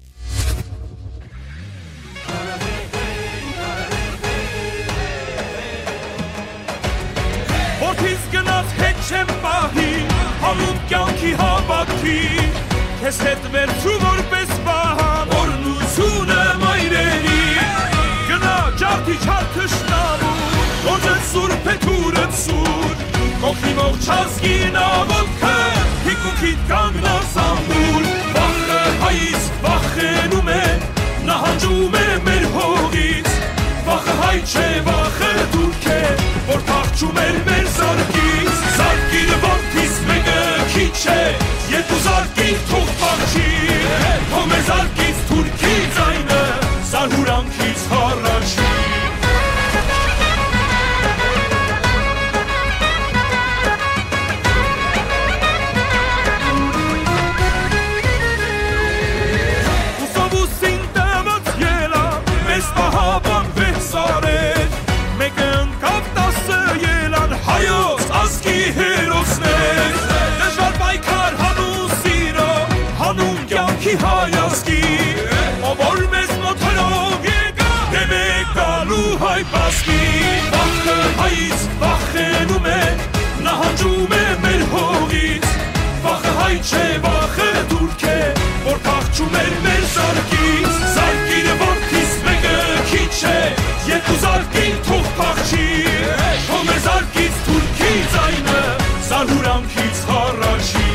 Որդիս գնաց հետ չեմ պահի, հանուն կյանքի հավաքի, քեզ հետ վերցու որպես պահան, օրհնությունը մայրերի, գնա ջարդի չար թշնամու, գործը սուրբ է թուրը սուր, կողքի ողջ ազգին աղոթքը, թիկունքիդ կանգնած ամուր, վախը հայից վախենում է, նահանջում է մեր հողից, վախը հայ չէ, վախը թուրք է, որ փախչում էր մեր զարկից, զարկիր որդիս մեկը քիչ է, երկու զարկիր թող փախչի, թող մեր զարկից թուրքի ձայնը, զարհուրանքից հառաչի։ Ուսովուսին տված ելա, մեզ պահապան վեց արեց, մեկը ընկավ տասը ելան հայոց ազգի հերոսներ, դժվար պայքար հանուն սիրո, հանուն կյանքի հայ ազգի, ով որ մեզ մոթերով եկա, դեմ է գալու հայ բազգի, վախը հայից վախենում է, նահանջում է մեր հողից, վախը հայ չէ, վախը թուրք է, որ փախչում էր մեր զարկից, զարկիր որդիս մեկը քիչ է, երկու զարկին թող փախչի, թող մեր զարկից թուրքի ձայնը, զարհուրանքից հառաչի։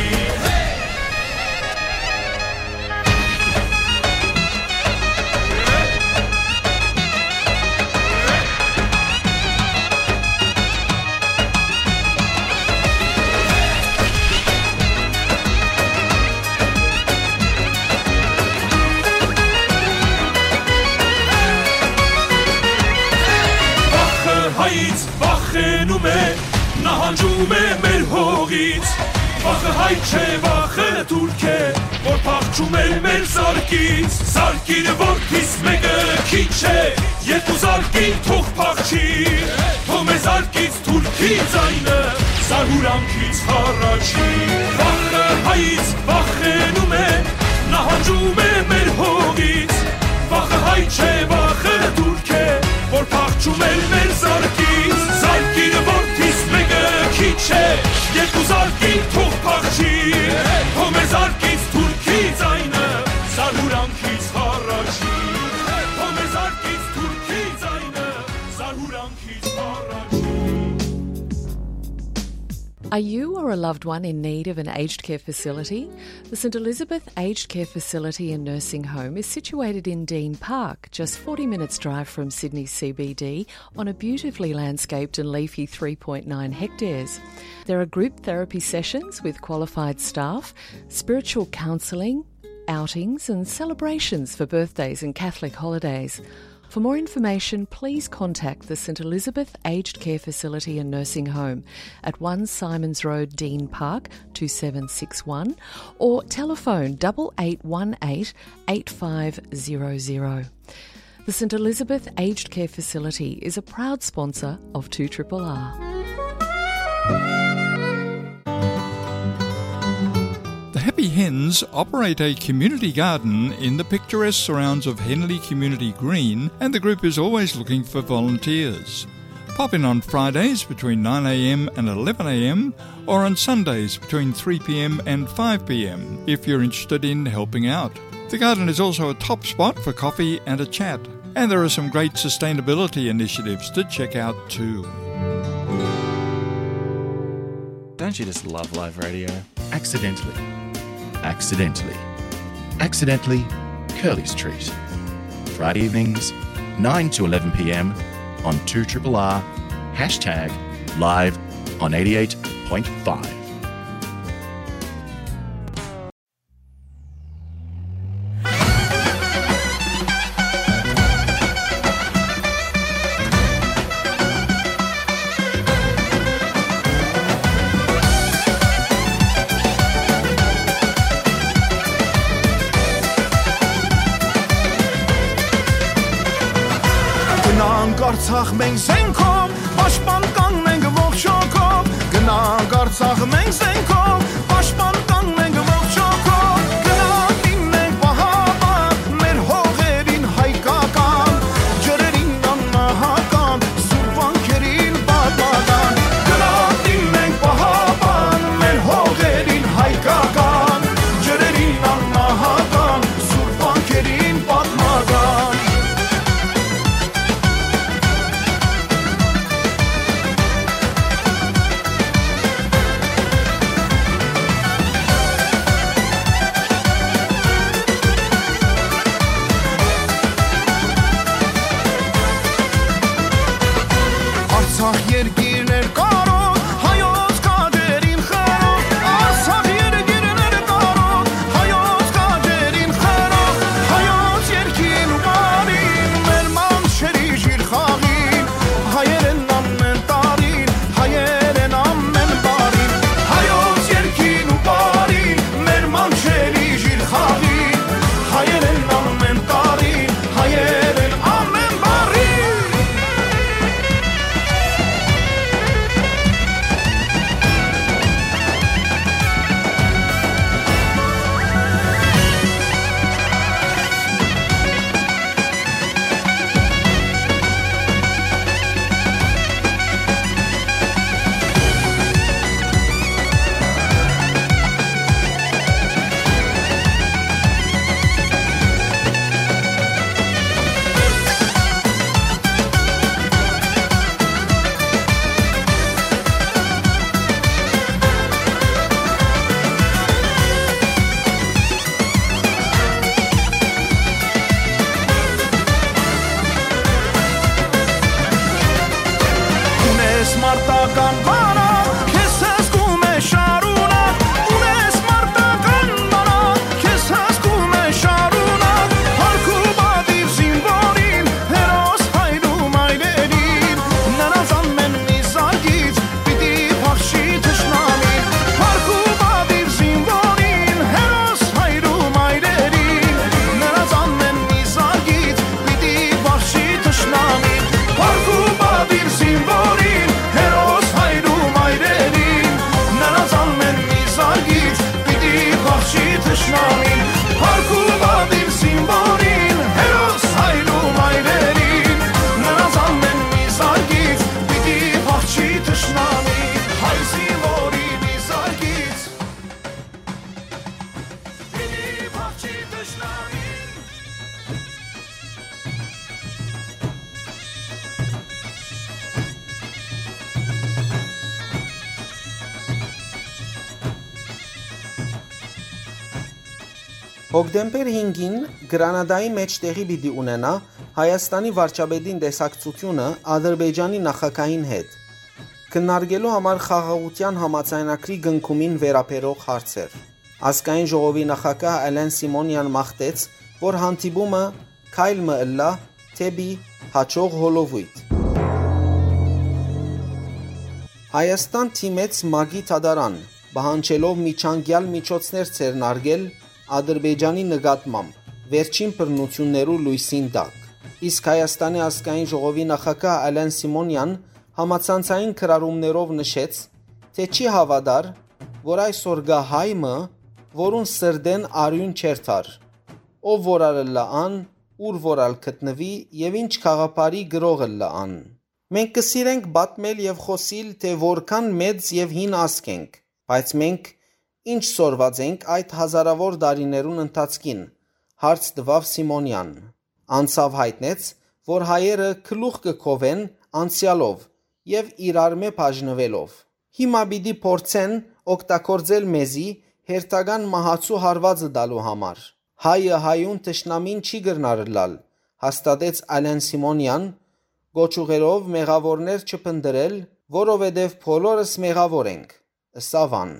Վախը հայից վախենում է, նահանջում է մեր հողից, վախը հայ չէ, վախը թուրք է, որ փախչում էր մեր զարկից, զարկիր որդիս մեկը քիչ է, երկու զարկին թող փախչի, թող մեր զարկից թուրքի ձայնը, զարհուրանքից հառաչի, վախը հայից վախենում է, նահանջում է մեր հողից, վախը հայ չէ, վախը թուրք է, որ փախչում էր մեր զարկից, զարկիր որդիս մեկը քիչ է, երկու զարկին թող փախչի, թող մեր զարկից թուրքի ձայնը, զարհուրանքից հառաչի, թող մեր զարկից թուրքի ձայնը, զարհուրանքից հառաչի։ Are you or a loved one in need of an aged care facility? The St Elizabeth Aged Care Facility and Nursing Home is situated in Dean Park, just forty minutes' drive from Sydney C B D, on a beautifully landscaped and leafy three point nine hectares. There are group therapy sessions with qualified staff, spiritual counselling, outings and celebrations for birthdays and Catholic holidays. For more information, please contact the St Elizabeth Aged Care Facility and Nursing Home at one Symonds Road, Dean Park, two seven six one, or telephone double eight one eight eight five zero zero. The St Elizabeth Aged Care Facility is a proud sponsor of two R R R. The Happy Hens operate a community garden in the picturesque surrounds of Henley Community Green, and the group is always looking for volunteers. Pop in on Fridays between nine a.m. and eleven a.m., or on Sundays between three p.m. and five p.m. if you're interested in helping out. The garden is also a top spot for coffee and a chat, and there are some great sustainability initiatives to check out too. Don't you just love live radio? Accidentally. Accidentally. Accidentally, Curly's Treat. Friday evenings, nine to eleven p.m. on two triple R, hashtag live on eighty-eight point five. Գնանք Արցախ մենք զենքով, պաշտպան կանգնենք ողջ հոգով։ Գնանք Արցախ մենք զենքով, պաշտպան կանգնենք ողջ հոգով։ Գնանք դիմենք պահապան, մեր հողերին հայկական, ջրերին անմահական, սուրբ վանքերին պատմական։ Գնանք դիմենք պահապան, մեր հողերին հայկական, ջրերին անմահական, սուրբ վանքերին պատմական։ Արցախ երկիրներ կարող, հայոց քաջերին խարող, Արցախ երկիրներ կարող, հայոց քաջերին խարող, հայոց երկին ու բարին, մեր մանչերի ժիրխաղին, հայերեն ամեն տարին, հայերեն ամեն բարին, հայոց երկին ու բարին, մեր մանչերի ժիրխաղին, հայերեն ամեն տարին, հայերեն ամեն բարին։ Ունես մարտական բանակ, քեզ հսկում է շարունակ, ունես մարտական բանակ, քեզ հսկում է շարունակ, փառք ու պատիվ զինվորին, հերոս հայր ու մայրերին, նրանց ամեն մի զարկից պիտի փախչի թշնամին, փառք ու պատիվ զինվորին, հերոս հայր ու մայրերին, նրանց ամեն մի զարկից պիտի փախչի թշնամին, փառք ու պատիվ զինվորին, հերոս հայր ու մայրերին, նրանց ամեն մի զարկից պիտի փախչի թշնամին, փառք ու պատիվ զինվորին, հերոս հայր ու մայրերին, նրանց ամեն մի զարկից պիտի փախչի թշնամին, հայ զինվորի մի զարկից պիտի փախչի թշնամին։ Հոկտեմբեր հինգին Գրանադայի մէջ տեղի պիտի ունենայ Հայաստանի վարչապետին տեսակցութիւնը Ադրբեջանի նախագահին հետ, քննարկելու համար խաղաղութեան համաձայնագրի կնքումին վերաբերող հարցեր։ Ազգային ժողովի նախագահ Ալեն Սիմոնեան մաղթեց, որ հանդիպումը քայլ մը ըլլայ դէպի յաջող հոլովոյթ։ Հայաստան դիմեց ՄԱԿ-ի դատարան, պահանջելով միջանկեալ միջոցներ ձեռնարկել Ադրբեջանի նկատմամբ վերջին բռնութիւններու լոյսին տակ։ Իսկ Հայաստանի ազգային ժողովի նախագահ Ալեն Սիմոնեան համացանցային գրառումներով նշեց, թէ չի հաւատար, որ այսօր կայ հայ մը, որուն սրտէն արիւն չէր տար, ով որ ալ ըլլայ ան, ուր որ ալ գտնուի եւ ինչ գաղափարի գրող ըլլայ ան։ Մենք կը սիրենք պատմել եւ խօսիլ, թէ որքան մեծ եւ հին ազգ ենք, բայց մենք ի՞նչ սորված ենք այդ հազարաւոր տարիներուն ընթացքին, հարց տուաւ Սիմոնեան։ Անցաւ յայտնեց, որ հայերը գլուխ կը քովեն անցեալով եւ իրարմէ բաժնուելով։ Հիմա պիտի փորձեն օգտագործել մեզի հերթական մահացու հարուածը տալու համար։ Հայը հայուն թշնամին չի կրնար ըլլալ, հաստատեց Ալեն Սիմոնեան, կոչ ուղղելով մեղաւորներ չփնտռել, որովհետեւ բոլորս մեղաւոր ենք, ըսաւ ան։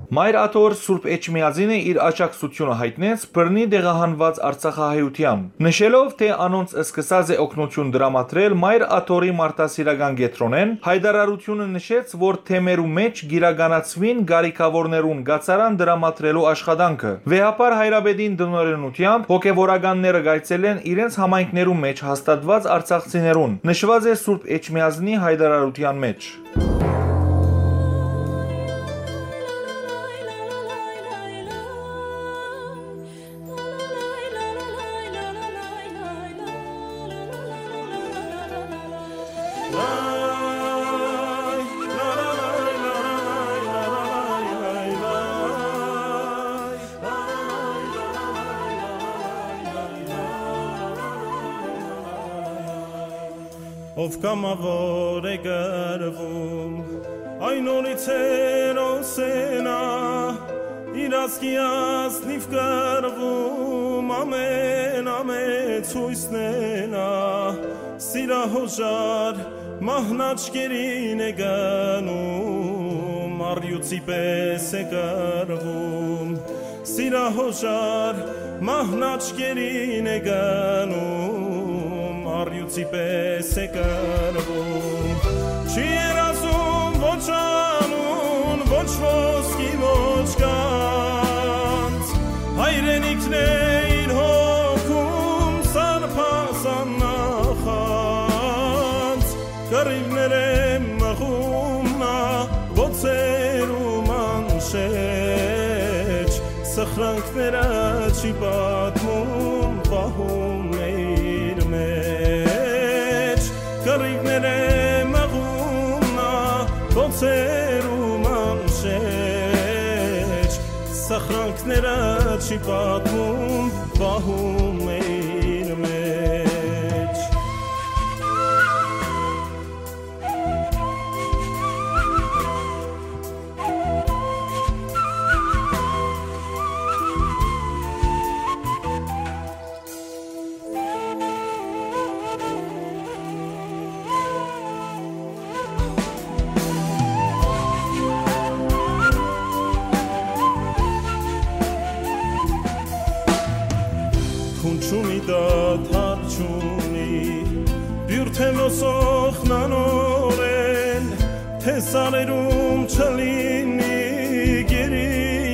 Մայր Աթոռ Սուրբ Էջմիածինը իր աջակցութիւնը յայտնեց բռնի տեղահանուած արցախահայութեան, նշելով, թէ անոնց սկսած է օգնութիւն տրամադրել Մայր Աթոռի մարդասիրական կեդրոնէն, յայտարարութիւնը նշեց, որ թեմերու մէջ կիրականացուին կարիքաւորներուն կացարան տրամադրելու աշխատանքը։ Վեհափառ հայրապետին տնօրէնութեամբ հոգեւորականները կայցելեն իրենց համայնքներու մէջ հաստատուած արցախցիներուն, նշուած է Սուրբ Էջմիածնի յայտարարութեան մէջ։ Ով կամաւոր է կռվում, այն օրից հերոս է նա, իր ազգի ազնիվ կռվում, ամեն ամեց յոյսն է նա, սիրահոժար մահն աչքերին է գնում, առյուծի պէս է կռվում, սիրահոժար մահն աչքերին է գնում, առյուծի պէս է կռվում։ Չի երազում ոչ անուն, ոչ ոսկի, ոչ գանձ, հայրենիքն է իր հոգում սարբազան նախանձ, կռիւներէ մղում նա բոցերու մանշէջ, սխրանքները չի պատմում, պահում է իր մեջ, կռիւներէ մղում նա բոցերու մանշէջ, սխրանքները չի պատմում, պահում է իր մեջ։ Քուն չունի, դադար չունի, բիւր թէ ոսոխնանօրէն, թէ սարերում չլինի գերի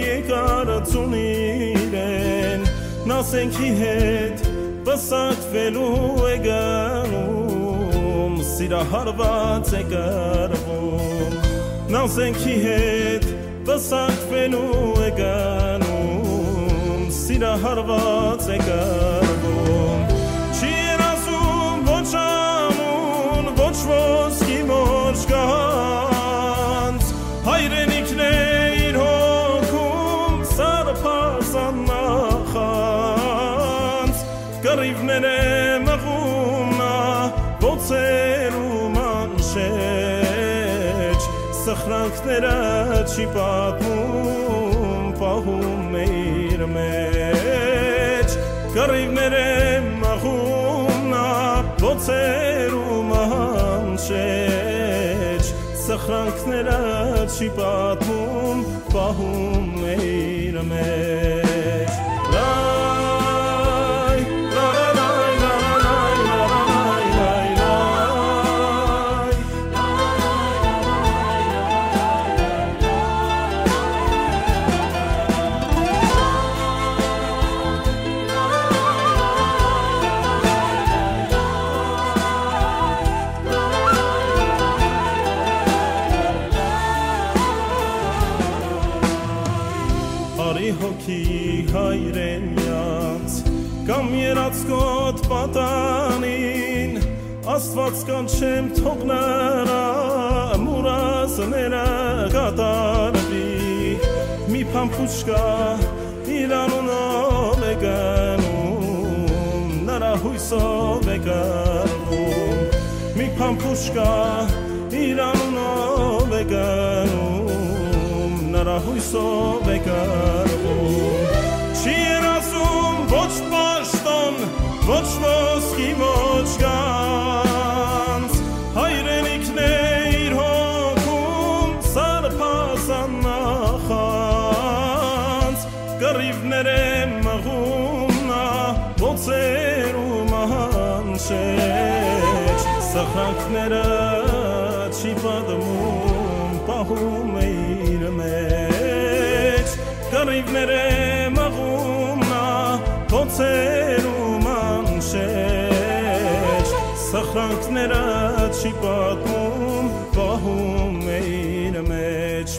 եկարծուն իրեն, նա զենքի հետ պսակուելու է գնում, սիրահարուած է կռվում, նա զենքի հետ պսակուելու է գնում, սիրահարուած է կռվում։ Չի երազում ոչ անուն, ոչ ոսկի, ոչ գանձ, հայրենիքն է իր հոգում սարբազան նախանձ, կռիւներէ մղում նա բոցերու մանշէջ, սխրանքները չի պատմում, պահում է իր մեջ, կռիւներէ մղում նա բոցերու մանշէջ, սխրանքները չի պատմում, պահում է իր մեջ։ Լայ, լա, լա, լայ, լա, լայ, լա, լայ, լայ, լայ, լայ։ Արի հոգի հայրենեանց կամ երածքոտ պատանին, Աստուած կանչեմ, թող նրա մուրազները կատարուի, մի փամփուշկա իր անունով է գնում, նրա յոյսով է կռվում, մի փամփուշկա իր անունով է գնում, Յուսով է կռվում։ Չի երազում ոչ պաշտոն, ոչ ոսկի, ոչ գանձ։ Հայրենիքն է իր հոգում, սարսափազան նախանձ։ Կռիւներ է մղում նա, բոցերու մանշէջ, սխրանքները չի պատմում, պահում է իր մեջ։ Կռիւներ է մղում նա, բոցերու մանշէջ, սխրանքները չի պատմում, պահում է իր մեջ։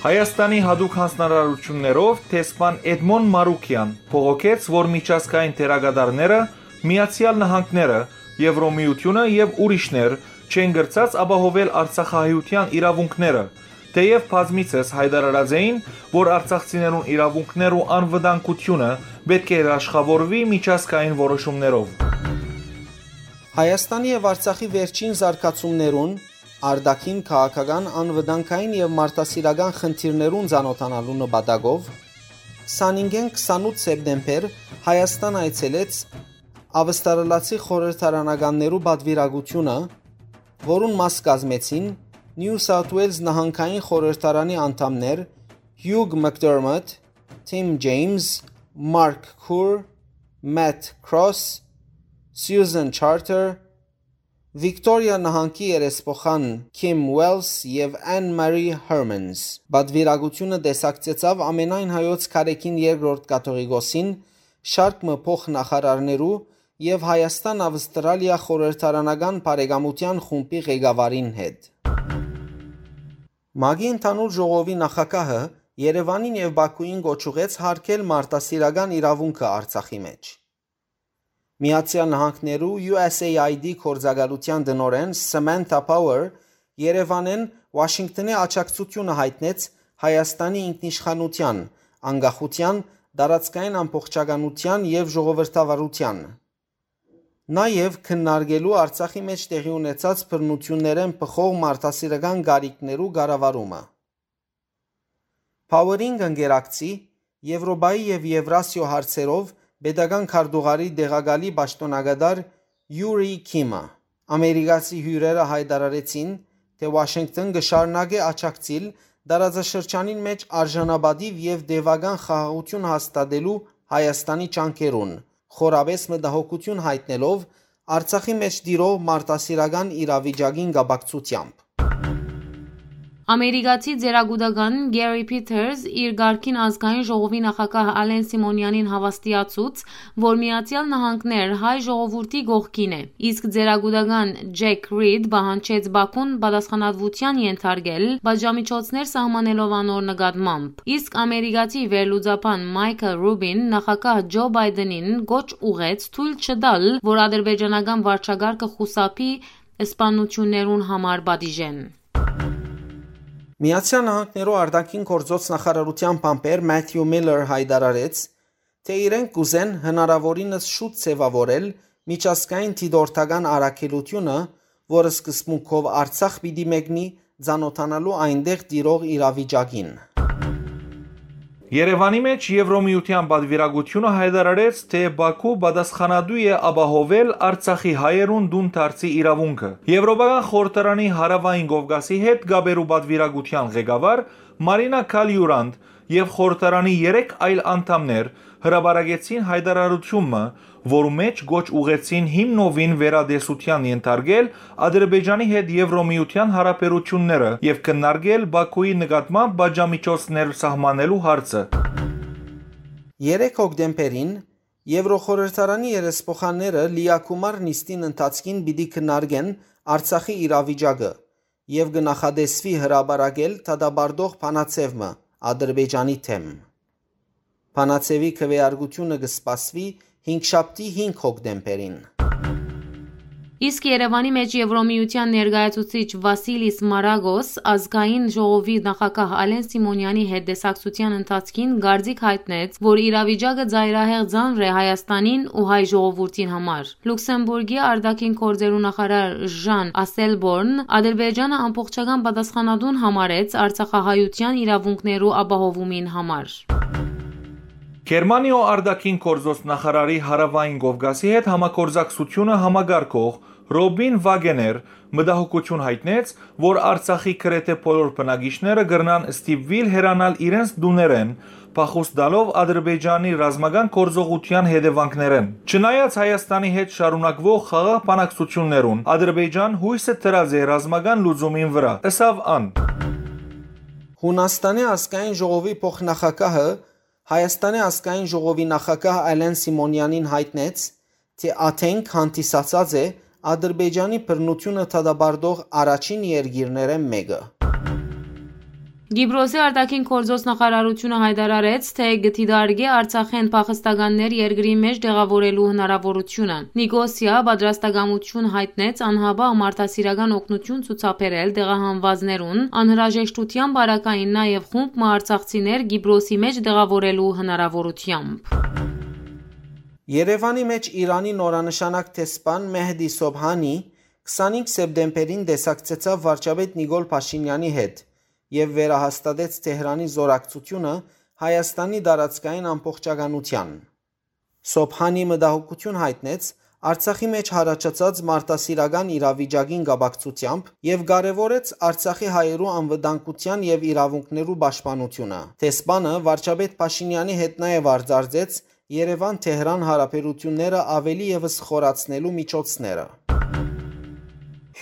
Հայաստանի յատուկ յանձնարարութիւններով դեսպան Էդմոն Մարուկեան բողոքեց, որ միջազգային դերակատարները, Միացեալ Նահանգները, Եվրոմիութիւնը եւ ուրիշներ չեն կրցած ապահովել արցախահայութեան իրաւունքները, թէեւ բազմիցս յայտարարած էին, որ արցախցիներուն իրաւունքներ ու անվտանգութիւնը պէտք է երաշխաւորուի միջազգային որոշումներով։ Հայաստանի եւ Արցախի վերջին զարգացումներուն, արտաքին, քաղաքական, անվտանգային եւ մարդասիրական խնդիրներուն ծանօթանալու նպատակով, քսանինգէն քսանութ սեպտեմբեր Հայաստան այցելեց Ավստրալացի խորհրդարանականներու պատվիրակութիւնը, որուն մաս կազմեցին Նիու Սաութ Ուէյլզ նահանգային խորհրդարանի անդամներ Հիուկ Մակդերմոտ, Թիմ Ջեյմս, Մարկ Քուր, Մեթ Քրոս, Սիուզան Չարթեր, Վիկտորիա նահանգի երեսփոխան Քիմ Ուելս եւ Անն Մարի Հերմանս։ Պատվիրակութիւնը տեսակցեցաւ ամենայն հայոց քարէքին երկրորդ կաթողիկոսին, շարք մը փոխնախարարներու եւ Հայաստան-Ավստրալիա խորհրդարանական բարեկամութեան խումբի ղեկավարին հետ։ ՄԱԿ-ի ընդհանուր ժողովի նախագահը Երեւանին եւ Բաքուին կոչ ուղղեց յարգել մարդասիրական իրաւունքը Արցախի մէջ։ Միացեալ Նահանգներու յու էս էյ այի դի գործակալութեան տնօրէն Սամանթա Փաուեր Երեւանէն Ուաշինկթոնի աջակցութիւնը յայտնեց Հայաստանի ինքնիշխանութեան, անկախութեան, տարածքային ամբողջականութեան եւ ժողովրդավարութեան, նաեւ քննարկելու Արցախի մէջ տեղի ունեցած բռնութիւններէն բխող մարդասիրական կարիքներու կառավարումը։ Փաուերին կ'ընկերակցի Եվրոպայի եւ Եվրասիոյ հարցերով պետական քարտուղարի տեղակալի պաշտօնակատար Յուրի Քիմը։ Ամերիկացի հիւրերը յայտարարեցին, թէ Ուաշինկթոն կը շարունակէ աջակցիլ տարածաշրջանին մէջ արժանապատիւ եւ տեւական խաղաղութիւն հաստատելու Հայաստանի ջանքերուն, խորապէս մտահոգութիւն յայտնելով Արցախի մէջ տիրող մարդասիրական իրավիճակին կապակցութեամբ։ Ամերիկացի ծերակուտական Գերի Փիթերս իր կարգին ազգային ժողովի նախագահ Ալեն Սիմոնյանին հաւաստիացուց, որ Միացեալ Նահանգներ հայ ժողովուրդի կողքին է, իսկ ծերակուտական Ջեք Ռիդ պահանջեց Բաքուն պատասխանատվութեան ենթարկել պատժամիջոցներ սահմանելով անոր նկատմամբ։ Իսկ ամերիկացի վերլուծաբան Մայքլ Ռուբին նախագահ Ջո Բայդենին կոչ ուղղեց թոյլ չտալ, որ ադրբեջանական վարչակարգը խուսափի սպաննութիւններուն համար պատիժէն։ Միացեալ Նահանգներու արտաքին գործոց նախարարութեան բանբեր Մաթիու Միլլեր յայտարարեց, թէ իրենք կ'ուզեն հնարաւորինս շուտ ձեւաւորել միջազգային դիտորդական առաքելութիւնը, որ սկզբունքով Արցախ պիտի մեկնի ծանօթանալու այնտեղ տիրող իրավիճակին։ Երեւանի մէջ Եվրոմիութեան պատվիրակութիւնը յայտարարեց, թէ Բաքու պատասխանատու է ապահովել Արցախի հայերուն տուն դարձի իրաւունքը։ Եվրոպական խորհրդարանի Հարաւային Կովկասի հետ կապերու պատվիրակութեան ղեկավար Մարինա Քալիուրանդ եւ խորհրդարանի երեք այլ անդամներ հրապարակեցին յայտարարութիւն մը, որու մէջ կոչ ուղղեցին հիմնովին վերատեսութեան ենթարկել Ադրբեջանի հետ Եվրոմիութեան յարաբերութիւնները եւ քննարկել Բաքուի նկատմամբ պատժամիջոցներ սահմանելու հարցը։ Երեք հոկտեմբերին Եվրոխորհրդարանի երեսփոխանները լիակումար նիստին ընթացքին պիտի քննարկեն Արցախի իրավիճակը եւ կը նախատեսուի հրապարակել դատապարտող բանաձեւ մը Ադրբեջանի դէմ։ Բանաձեւի քվեարկութիւնը կը սպասուի հինգշաբթի հինգ հոկտեմբերին։ Իսկ Երեւանի մէջ Եվրոմիութեան ներկայացուցիչ Վասիլիս Մարագոս ազգային ժողովի նախագահ Ալեն Սիմոնեանի հետ տեսակցութեան ընթացքին կարծիք յայտնեց, որ իրավիճակը ծայրահեղ ծանր է Հայաստանին ու հայ ժողովուրդին համար։ Լուքսեմբուրգի արտաքին գործերու նախարար Ժան Ասելբորն Ադրբեջանը ամբողջական պատասխանատուն համարեց արցախահայութեան իրաւունքներու ապահովումին համար։ Գերմանիոյ արտաքին գործոց նախարարի Հարաւային Կովկասի հետ համագործակցութիւնը համակարգող Ռոբին Վագեներ մտահոգութիւն յայտնեց, որ Արցախի գրեթէ բոլոր բնակիչները կրնան ստիպուիլ հեռանալ իրենց տուներէն, փախուստ տալով Ադրբեջանի ռազմական գործողութեան հետեւանքներէն։ Չնայած Հայաստանի հետ շարունակուող խաղաղ բանակցութիւններուն, Ադրբեջան յոյսը դրած է ռազմական լուծումին վրայ, ըսաւ ան։ Յունաստանի ազգային ժողովի փոխնախագահը Հայաստանի ազգային ժողովի նախագահ Ալեն Սիմոնեանին յայտնեց, թէ Աթենք հանդիսացած է Ադրբեջանի բռնութիւնը դատապարտող առաջին երկիրներէն մէկը։ Կիպրոսի արտաքին գործոց նախարարութիւնը յայտարարեց, թէ կը դիտարկէ Արցախէն փախստականներ երկրի մէջ տեղաւորելու հնարաւորութիւնը։ Նիկոսիա պատրաստակամութիւն յայտնեց անհապաղ մարդասիրական օգնութիւն ցուցաբերել տեղահանուածներուն, անհրաժեշտութեան պարագային նաեւ խումբ մը արցախցիներ Կիպրոսի մէջ տեղաւորելու հնարաւորութեամբ։ Երեւանի մէջ Իրանի նորանշանակ դեսպան Մեհդի Սոբհանի քսանհինգ սեպտեմբերին տեսակցեցաւ վարչապետ Նիկոլ Փաշինեանի հետ եւ վերահաստատեց Թեհրանի զօրակցութիւնը Հայաստանի տարածքային ամբողջականութեան։ Սոբհանի մտահոգութիւն յայտնեց Արցախի մէջ յառաջացած մարդասիրական իրավիճակին կապակցութեամբ եւ կարեւորեց Արցախի հայերու անվտանգութեան եւ իրաւունքներու պաշտպանութիւնը։ Դեսպանը վարչապետ Փաշինեանի հետ նաեւ արձարծեց Երեւան-Թեհրան յարաբերութիւնները աւելի եւս խորացնելու միջոցները։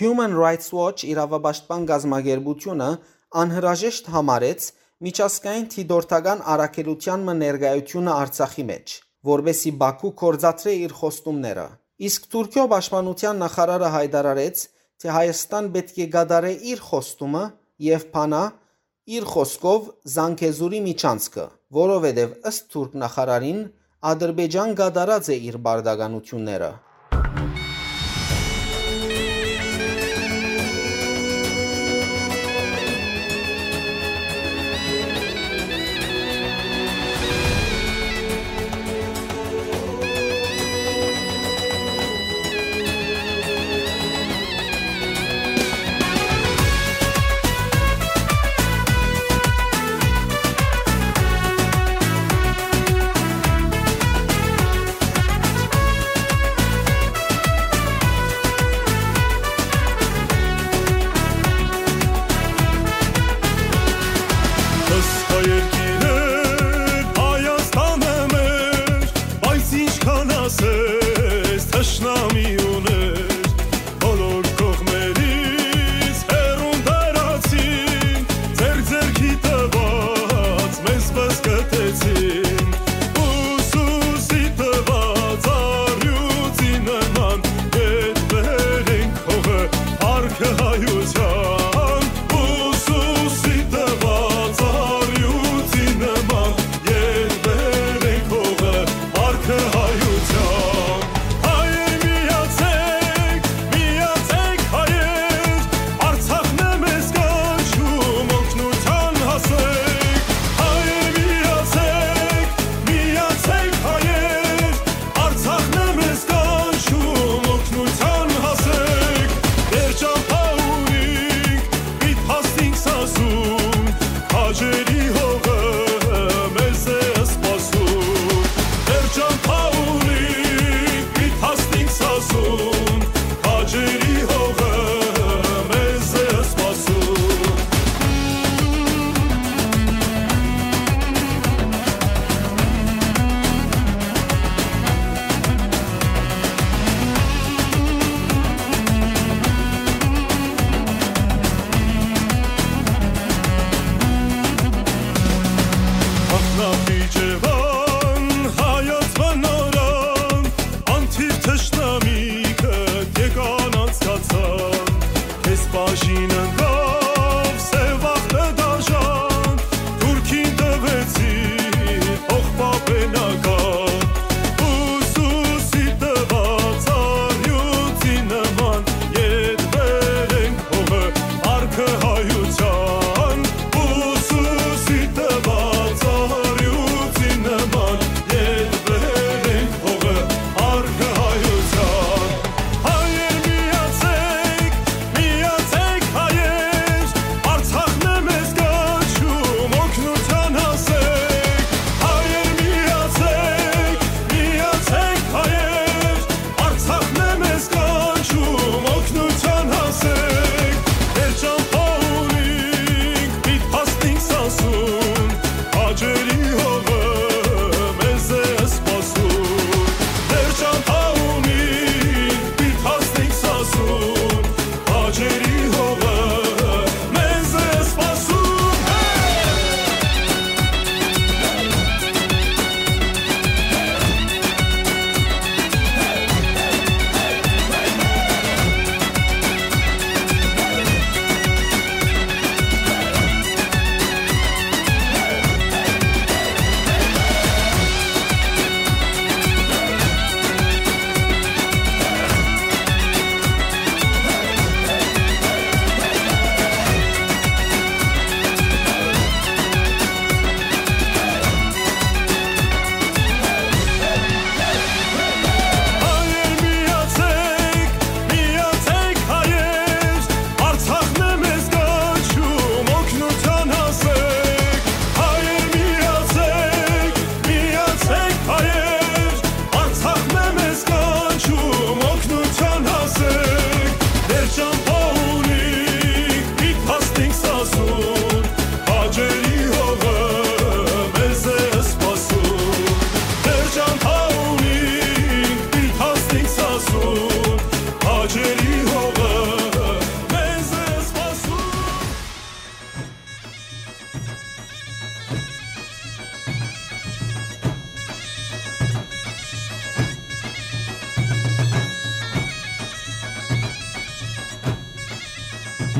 Human Rights Watch իրաւապաշտպան կազմակերպութիւնը անհրաժեշտ համարեց միջազգային դիտորդական առաքելութեան մը ներկայութիւնը Արցախի մէջ, որպէսզի Բաքու գործադրէ իր խոստումները։ Իսկ Թուրքիոյ պաշտպանութեան նախարարը յայտարարեց, թէ Հայաստան պէտք է կատարէ իր խոստումը եւ բանայ, իր խօսքով, Զանգեզուրի միջանցքը, որովհետեւ ըստ թուրք նախարարին, Ադրբեջան կատարած է իր պարտականութիւնները։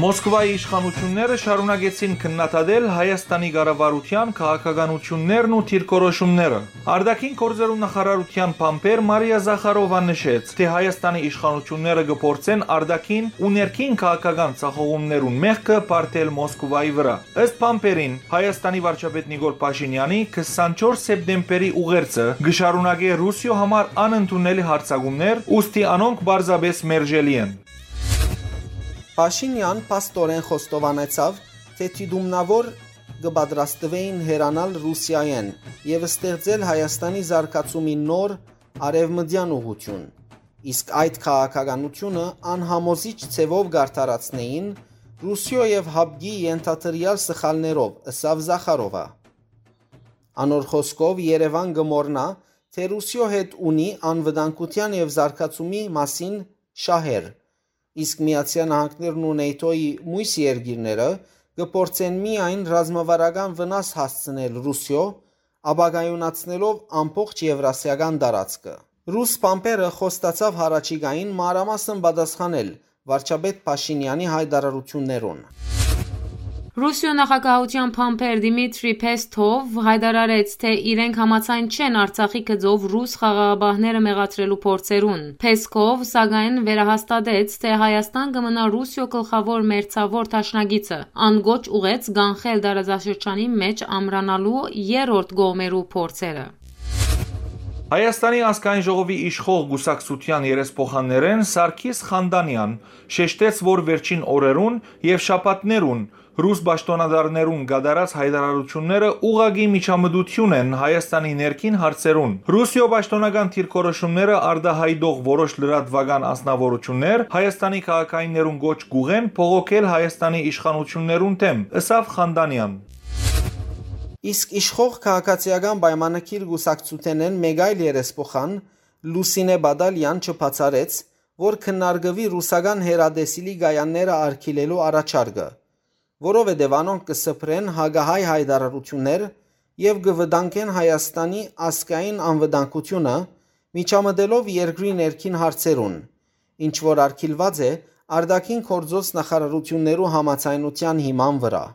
Մոսկվայի իշխանութիւնները շարունակեցին քննադատել Հայաստանի կառավարութեան քաղաքականութիւններն ու դիրքորոշումները։ Արտաքին գործերու նախարարութեան բանբեր Մարիա Զախարովա նշեց, թէ Հայաստանի իշխանութիւնները կը փորձեն արտաքին ու ներքին քաղաքական ձախողումներուն մեղքը պարտել Մոսկվայի վրայ։ Ըստ բանբերին, Հայաստանի վարչապետ Նիկոլ Փաշինեանի քսանչորս սեպտեմբերի ուղերձը կը շարունակէ Ռուսիոյ համար անընդունելի յարձակումներ, ուստի անոնք պարզապէս մերժելի են։ Փաշինեան փաստօրէն խոստովանեցաւ, թէ դիտումնաւոր կը պատրաստուէին հեռանալ Ռուսիայէն եւ ստեղծել Հայաստանի զարգացումի նոր արեւմտեան ուղղութիւն, իսկ այդ քաղաքականութիւնը անհամոզիչ ձեւով կ'արդարացնէին Ռուսիոյ եւ յապկի ենթադրեալ սխալներով, ըսաւ Զախարովա։ Անոր խօսքով, Երեւան կը մոռնայ, թէ Ռուսիոյ հետ ունի անվտանգութեան եւ զարգացումի մասին շահեր, իսկ Միացեալ Նահանգներն ու նեյթոյի միւս երկիրները կը փորձեն միայն ռազմավարական վնաս հասցնել Ռուսիոյ, ապակայունացնելով ամբողջ եվրասիական տարածքը։ Ռուս բանբերը խոստացաւ յառաջիկային մանրամասն պատասխանել վարչապետ Փաշինեանի յայտարարութիւններուն։ Ռուսիոյ նախագահութեան բանբեր Դիմիտրի Փեսթով յայտարարեց, թէ իրենք համաձայն չեն Արցախի գծով ռուս խաղաղապահները մեղադրելու փորձերուն։ Փեսթով, սակայն, վերահաստատեց, թէ Հայաստան կը մնայ Ռուսիոյ գլխաւոր մերձաւոր դաշնակիցը։ Ան կոչ ուղղեց կանխել տարածաշրջանի մէջ ամրանալու երրորդ կողմերու փորձերը։ Հայաստանի ազգային ժողովի իշխող կուսակցութեան երեսփոխաններէն Սարգիս Խանդանեան շեշտեց, որ վերջին օրերուն եւ շաբաթներուն ռուս պաշտօնատարներուն կատարած յայտարարութիւնները ուղղակի միջամտութիւն են Հայաստանի ներքին հարցերուն։ Ռուսիոյ պաշտօնական դիրքորոշումները արտայայտող որոշ լրատուական անձնաւորութիւններ Հայաստանի քաղաքայիններուն կոչ կ'ուղղեն բողոքել Հայաստանի իշխանութիւններուն դէմ, ըսաւ Խանդանեան։ Իսկ իշխող Քաղաքացիական պայմանագիր կուսակցութենէն մէկ այլ երեսփոխան, Լուսինէ Բադալեան, չբացառեց, որ քննարկուի ռուսական հեռատեսիլի կայանները արգիլելու առաջարկը, որովհետեւ անոնք կը սփռեն հակահայ յայտարարութիւններ եւ կը վտանգեն Հայաստանի ազգային անվտանգութիւնը, միջամտելով երկրի ներքին հարցերուն, ինչ որ արգիլուած է արտաքին գործոց նախարարութիւններու համաձայնութեան հիման վրայ։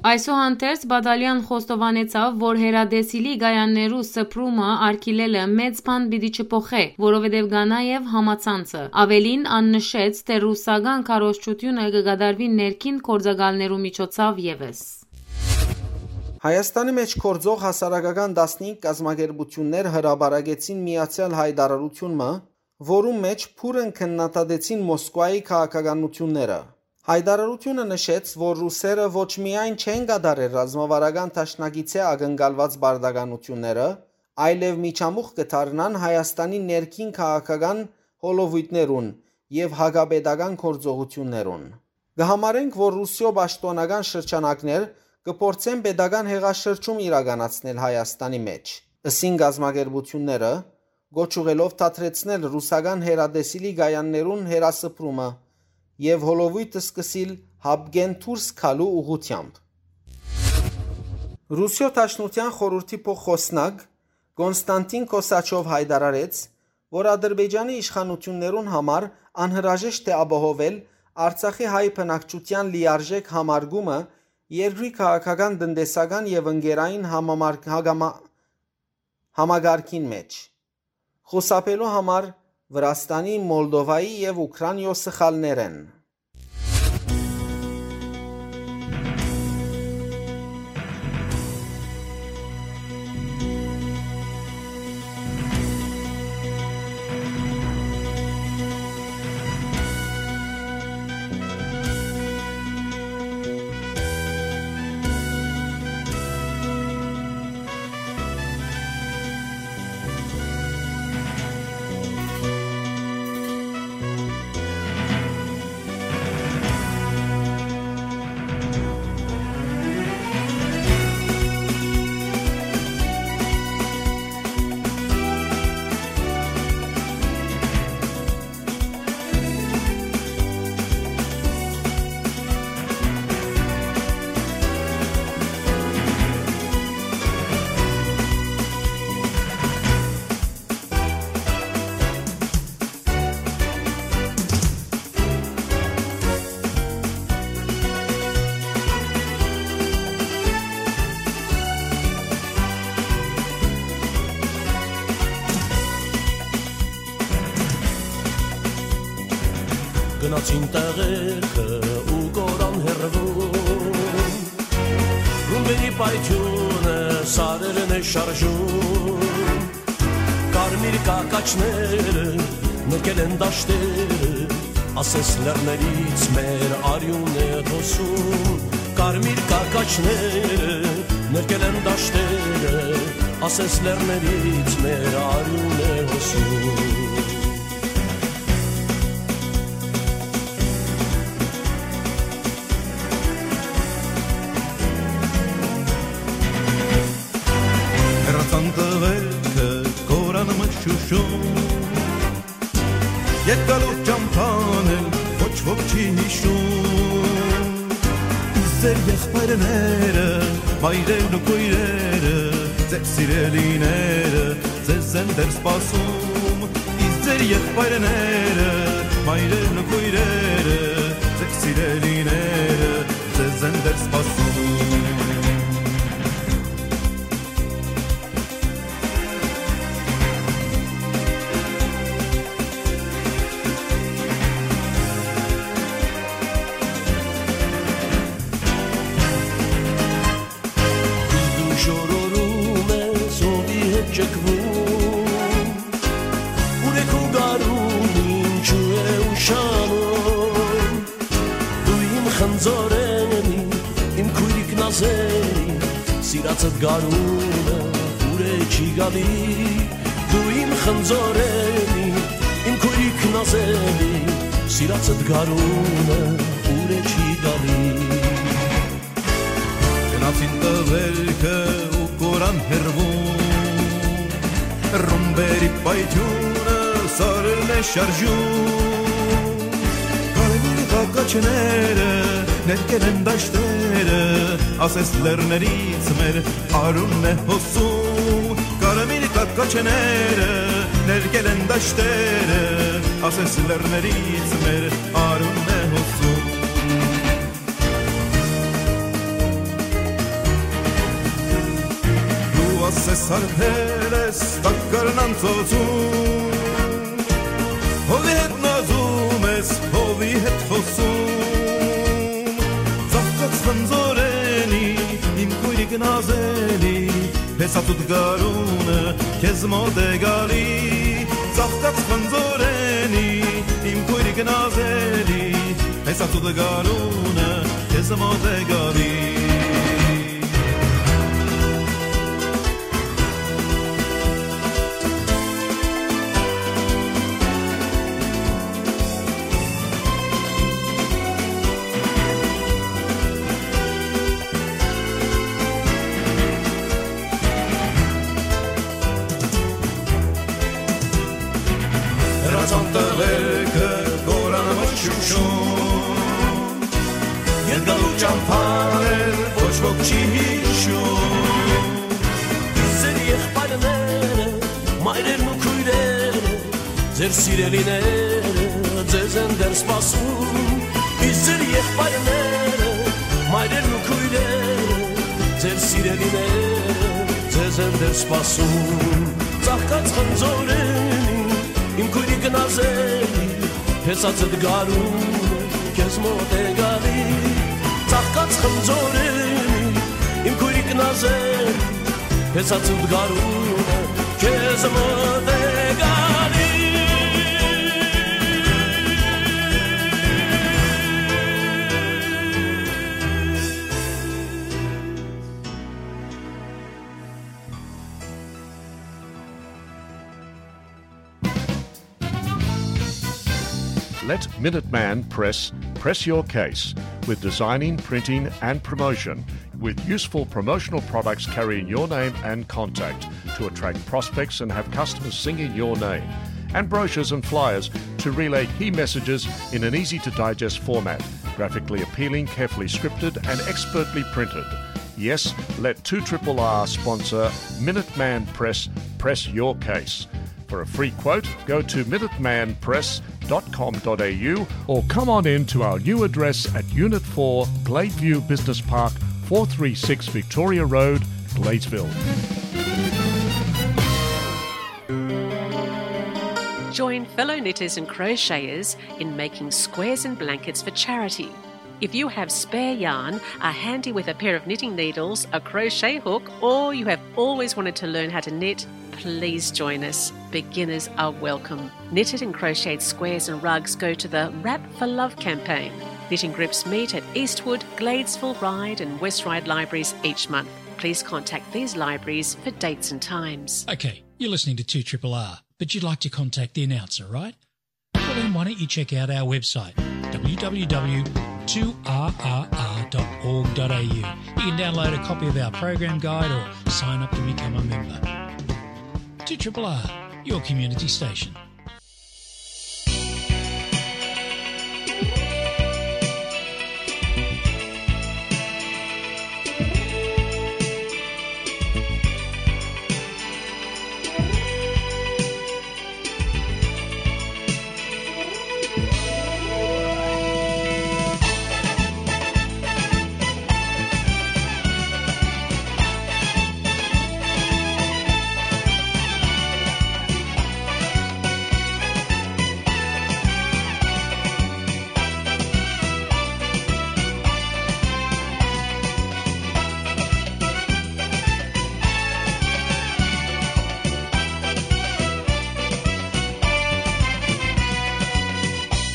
Այսուհանդերձ, Բադալեան խոստովանեցաւ, որ հեռատեսիլի կայաններու սփռումը արգիլելը մեծ բան պիտի չփոխէ, որովհետեւ կայ նաեւ համացանցը։ Աւելին, ան նշեց, թէ ռուսական քարոզչութիւնը կը կատարուի ներքին գործակալներու միջոցաւ եւս։ Հայաստանի մէջ գործող հասարակական տասնհինգ կազմակերպութիւններ հրապարակեցին միացեալ յայտարարութիւն մը, որուն մէջ բուռն քննադատեցին Մոսկվայի քաղաքականութիւնները։ Յայտարարութիւնը նշեց, որ ռուսերը ոչ միայն չեն կատարեր ռազմավարական դաշնակիցէ ակնկալուած պարտականութիւնները, այլեւ միջամուխ կը դառնան Հայաստանի ներքին քաղաքական հոլովոյթներուն եւ հակապետական գործողութիւններուն։ Կը համարենք, որ Ռուսիոյ պաշտօնական շրջանակներ կը փորձեն պետական հեղաշրջում իրականացնել Հայաստանի մէջ, ըսին կազմակերպութիւնները, կոչ ուղղելով դադրեցնել ռուսական հեռատեսիլի կայաններուն հեռասփռումը եւ հոլովոյթ սկսիլ յապկէն դուրս գալու ուղղութեամբ։ Ռուսիոյ Դաշնութեան խորհրդի փոխխօսնակ Կոնստանտին Կոսաչով յայտարարեց, որ Ադրբեջանի իշխանութիւններուն համար անհրաժեշտ է ապահովել Արցախի հայ բնակչութեան լիարժէք համարկումը երկրի քաղաքական, տնտեսական եւ ընկերային համամարկ-, հագամա-, համակարգին մէջ, խուսափելու համար Վրաստանի, Մոլդովայի եւ Ուքրանիոյ սխալներէն։ Գնացին տեղերքը ու կորան հեռվում, ռումբերի պայթիւնը սարերն է շարժում, կարմիր կակաչները նրկել են դաշտերը, ասես լեռներից մեր արիւն է հոսում, կարմիր կակաչները նրկել են դաշտերը, ասես լեռներից մեր արիւն է հոսում։ Հեռացան տղերքը կորան մշուշում, երկալուր ճամփան էլ ոչ ոք չի յիշում։ Իսկ ձեր եղբայրները, մայրերն ու քոյրերը, ձեր սիրելիները ձեզ են դեռ սպասում։ Իսկ ձեր եղբայրները, մայրերն ու քոյրերը, ձեր սիրելիները ձեզ են դեռ սպասում։ Իսկ դու շորորում ես, ով ի հետ ճկվում, ուրեք ու գարուն ինչու է ուշանում։ Դու իմ խնձորենի, իմ քոյրիկ նազելի, սիրածդ գարունը ուրե չի գալի։ Դու իմ խնձորենի, իմ քոյրիկ նազելի, սիրածդ գարունը ուրե չի գալի։ Գնացին տղերքը ու կորան հեռվում, ռումբերի պայթիւնը սարերն է շարժում, կարմիր կակաչները ներկել են դաշտերը, ասես լեռներից մեր արունն է հոսում, կարմիր կակաչները ներկել են դաշտերը, ասես լեռներից մեր արունն է հոսում։ Դու ասես հարբել ես տակառն անցոցում, հովի հետ նազում ես, հովի հետ խոսում, ծաղկած խնձորենի, իմ քոյրիկ նազելի, հեսացուտ գարունը քեզ մոտ է գալի, ծաղկած խնձորենի, իմ քոյրիկ նազելի, հեսացուտ գարունը քեզ մոտ է գալի։ Հեռացան տղերքը կորան մշուշում, երկալու ճամփան էլ ոչ ոք չի յիշում։ Ձեր եղբայրները, մայրերն ու քոյրերը, ձեր սիրելիները ձեզ են դեռ սպասում, իսկ ձեր եղբայրները, մայրերն ու քոյրերը, ձեր սիրելիները ձեզ են դեռ սպասում։ Ծաղկած խնձորենի, իմ քոյրիկ նազելի, հեսացդ գարունը քեզ մոտ է գալի։ Ծաղկած խնձորենի, իմ քոյրիկ նազելի, հեսացուտ գարունը քեզ մոտ է գալի։ Let Minuteman Press press your case with designing, printing, and promotion with useful promotional products carrying your name and contact to attract prospects and have customers singing your name, and brochures and flyers to relay key messages in an easy to digest format, graphically appealing, carefully scripted, and expertly printed. Yes, let two triple R sponsor Minuteman Press press your case. For a free quote, go to minuteman press dot com dot a u or come on in to our new address at Unit four, Gladeview Business Park, four three six Victoria Road, Gladesville. Join fellow knitters and crocheters in making squares and blankets for charity. If you have spare yarn, are handy with a pair of knitting needles, a crochet hook, or you have always wanted to learn how to knit, please join us. Beginners are welcome. Knitted and crocheted squares and rugs go to the Wrap for Love campaign. Knitting groups meet at Eastwood, Gladesville, Ryde and West Ryde libraries each month. Please contact these libraries for dates and times. Okay, you're listening to two triple R, but you'd like to contact the announcer, right? Well, then why don't you check out our website, w w w two r r r dot org dot a u. You can download a copy of our program guide or sign up to become a member. Two triple R, your community station.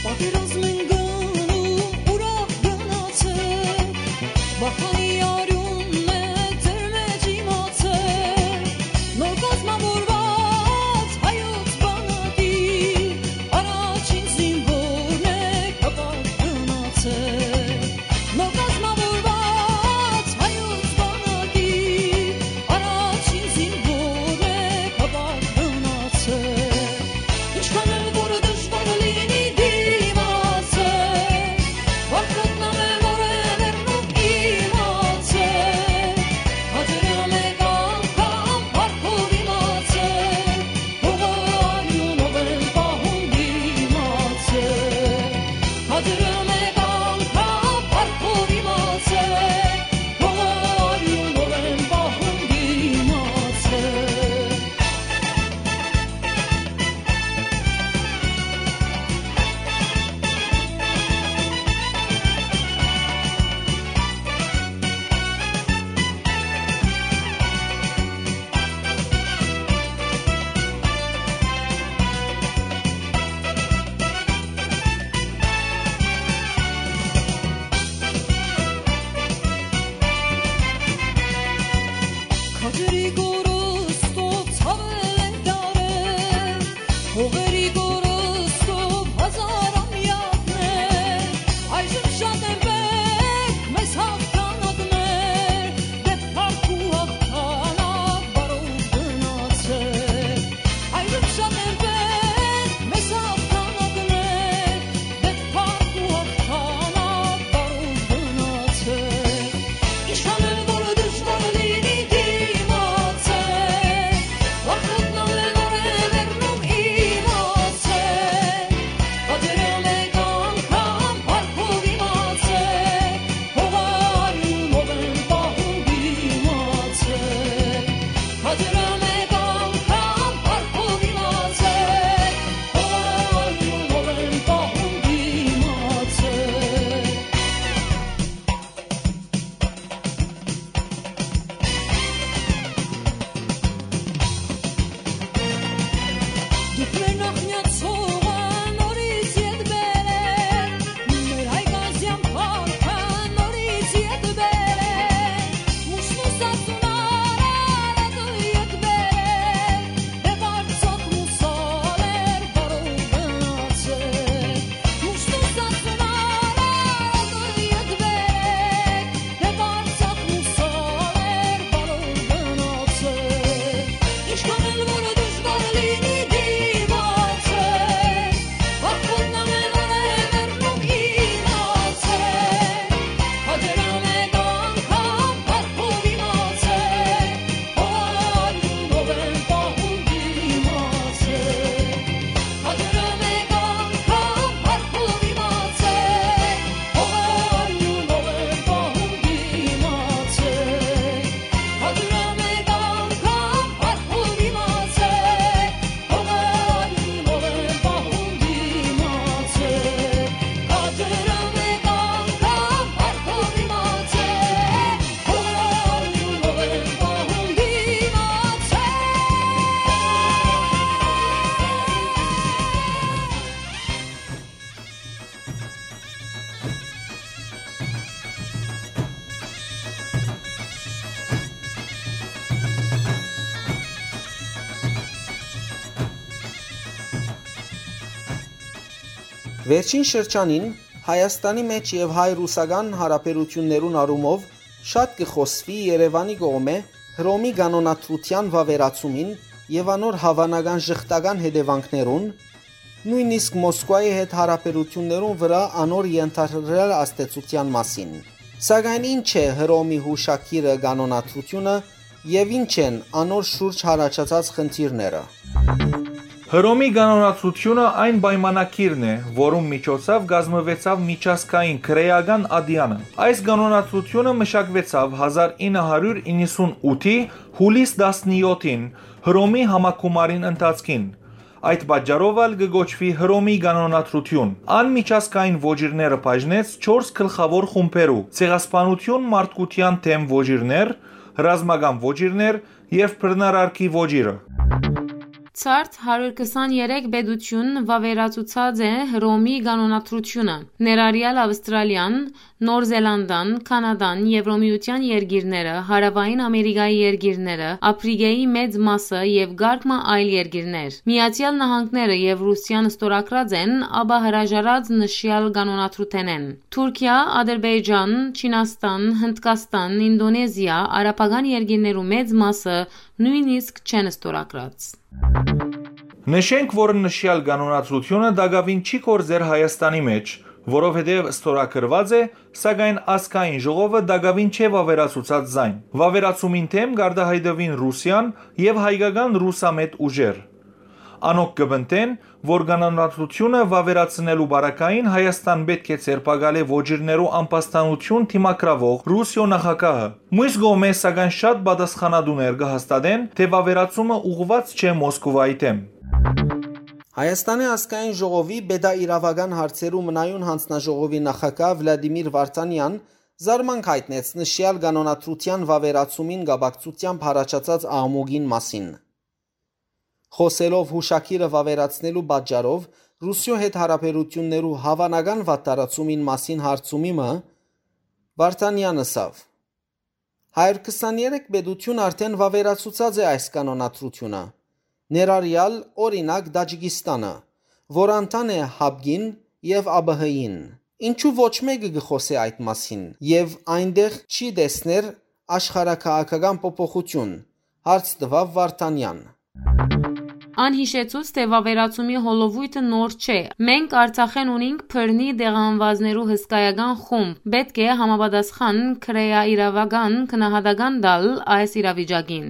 Պատերազմին գնու ուրախ գնացեք, Վախանի արիւնն է ձեր մեջ իմացեք, նոր կազմավորուած հայոց բանակի առաջին զինվորն է, կապակ գնացեք, նոր կազմավորուած հայոց բանակի առաջին զինվորն է, կապակ գնացեք, ինչքան էլ որ դժվար լինի դիմացեք, Վարդապետն ամեն օր է մեռնում իմացեք, հաջորյա մեկ անգամ փառքով իմացեք, հողը արիունով են պահում իմացեք, հաջորյա մեկ անգամ փառքով իմացեք, հողը արիունով են պահում իմացեք։ Քաջերի կորստով ցավել են դարեր, հողերի կորստով հազար ամյակներ, այժմ շատ են պետք մեզ հաղթանակներ, դեռ փառք ու հաղթանակ բարով գնացեք, այժմ շատ են պետք մեզ հաղթանակներ, դեռ փառք ու հաղթանակ բարով գնացեք, ինչքան էլ որ դժվար լինի դիմաց Վերջին շրջանին Հայաստանի մէջ եւ հայ-ռուսական յարաբերութիւններուն առումով շատ կը խօսուի Երեւանի կողմէ Հռոմի կանոնադրութեան վաւերացումին եւ անոր հաւանական ժխտական հետեւանքներուն, նոյնիսկ Մոսկուայի հետ յարաբերութիւններուն վրայ անոր ենթարկել ազդեցութեան մասին։ Սակայն ի՞նչ է Հռոմի յուշագիրը կանոնադրութիւնը եւ ի՞նչ են անոր շուրջ յառաջացած խնդիրները։ Հռոմի կանոնադրութիւնը այն պայմանագիրն է, որուն միջոցով կազմուեցաւ միջազգային քրէական ատեանը։ Այս կանոնադրութիւնը մշակուեցաւ հազար ինը հարիւր իննսունութի յուլիս տասնեօթին Հռոմի համագումարին ընթացքին։ Այդ պատճառով ալ կը կոչուի Հռոմի կանոնադրութիւն։ Ան միջազգային ոճիրները բաժնեց չորս գլխաւոր խումբերու՝ ցեղասպանութիւն, մարդկութեան դէմ ոճիրներ, ռազմական ոճիրներ եւ բռնարարքի ոճիրը։ Ցարդ հարիւր քսաներեք պետութիւն վաւերացուցած է Հռոմի կանոնադրութիւնը, ներառեալ Ավստրալիան, Նոր Զելանդան, Քանադան, Եվրոմիութեան երկիրները, Հարաւային Ամերիկայի երկիրները, Ափրիկայի մեծ մասը եւ կարգ մը այլ երկիրներ։ Միացեալ Նահանգները եւ Ռուսիան ստորագրած են, ապա հրաժարած նշեալ կանոնադրութենէն։ Թուրքիա, Ադրբեջան, Չինաստան, Հնդկաստան, Ինդոնեզիա, արաբական երկիրներու մեծ մասը նոյնիսկ չեն ստորագրած։ Նշենք, որ նշեալ կանոնադրութիւնը տակաւին չի գործեր Հայաստանի մէջ, որովհետեւ ստորագրուած է, սակայն ազգային ժողովը տակաւին չէ վաւերացուցած զայն։ Վաւերացումին դէմ կարտահայտուին Ռուսիան եւ հայկական ռուսամետ ուժեր։ Անոնք կը պնդեն, որ կանոնադրութիւնը վաւերացնելու պարագային Հայաստան պէտք է ձերբակալէ ոճիրներու ամբաստանութիւն դիմագրաւող Ռուսիոյ նախագահը։ Մյուս կողմէ, սակայն, շատ պատասխանատուներ կը հաստատեն, թէ վաւերացումը ուղղուած չէ Մոսկովայի դէմ։ Հայաստանի ազգային ժողովի պետաիրաւական հարցերու մնայուն յանձնաժողովի նախագահ Վլադիմիր Վարդանեան զարմանք յայտնեց նշեալ կանոնադրութեան վաւերացումին կապակցութեամբ յառաջացած աղմուկին մասին։ Խօսելով յուշագիրը վաւերացնելու պատճառով Ռուսիոյ հետ յարաբերութիւններու հաւանական վատթարացումին մասին հարցումի մը, Վարդանեան ըսաւ. «Հարիւր քսաներեք պետութիւն արդէն վաւերացուցած է այս կանոնադրութիւնը, ներառեալ, օրինակ, Տաջիկիստանը, որ անդամ է ՀԱՊԿ-ին եւ ԱՊՀ-ին։ Ինչու ոչ մէկը կը խօսէ այդ մասին եւ այնտեղ չի տեսներ աշխարհաքաղաքական փոփոխութիւն», հարց տուաւ Վարդանեան։ Ան յիշեցուց, թէ վաւերացումի հոլովոյթը նոր չէ։ Մենք Արցախէն ունինք բռնի տեղահանուածներու հսկայական խումբ։ Պէտք է համապատասխան քրեաիրաւական գնահատական տալ այս իրավիճակին։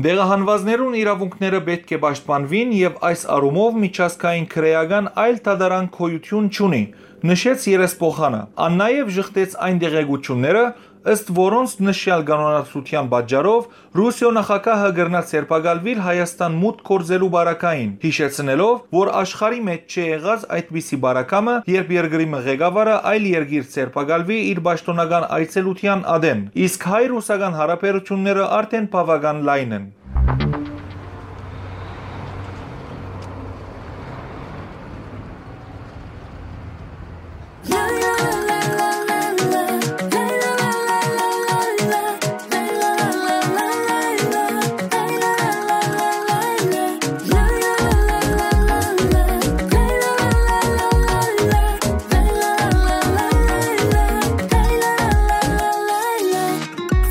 Տեղահանուածներուն իրաւունքները պէտք է պաշտպանուին եւ այս առումով միջազգային քրեական այլ դատարան գոյութիւն չունի, նշեց երեսփոխանը։ Ան նաեւ ժխտեց այն տեղեկութիւնները, ըստ որոնց նշեալ կանոնադրութեան պատճառով Ռուսիոյ նախագահը կրնայ ձերբակալուիլ Հայաստան մուտք գործելու պարագային, յիշեցնելով, որ աշխարհի մէջ չի եղած այդպիսի պարագայ մը, երբ երկրի մը ղեկավարը այլ երկիր ձերբակալուի իր պաշտօնական այցելութեան ատեն, իսկ հայ-ռուսական յարաբերութիւնները արդէն բաւական լայն են։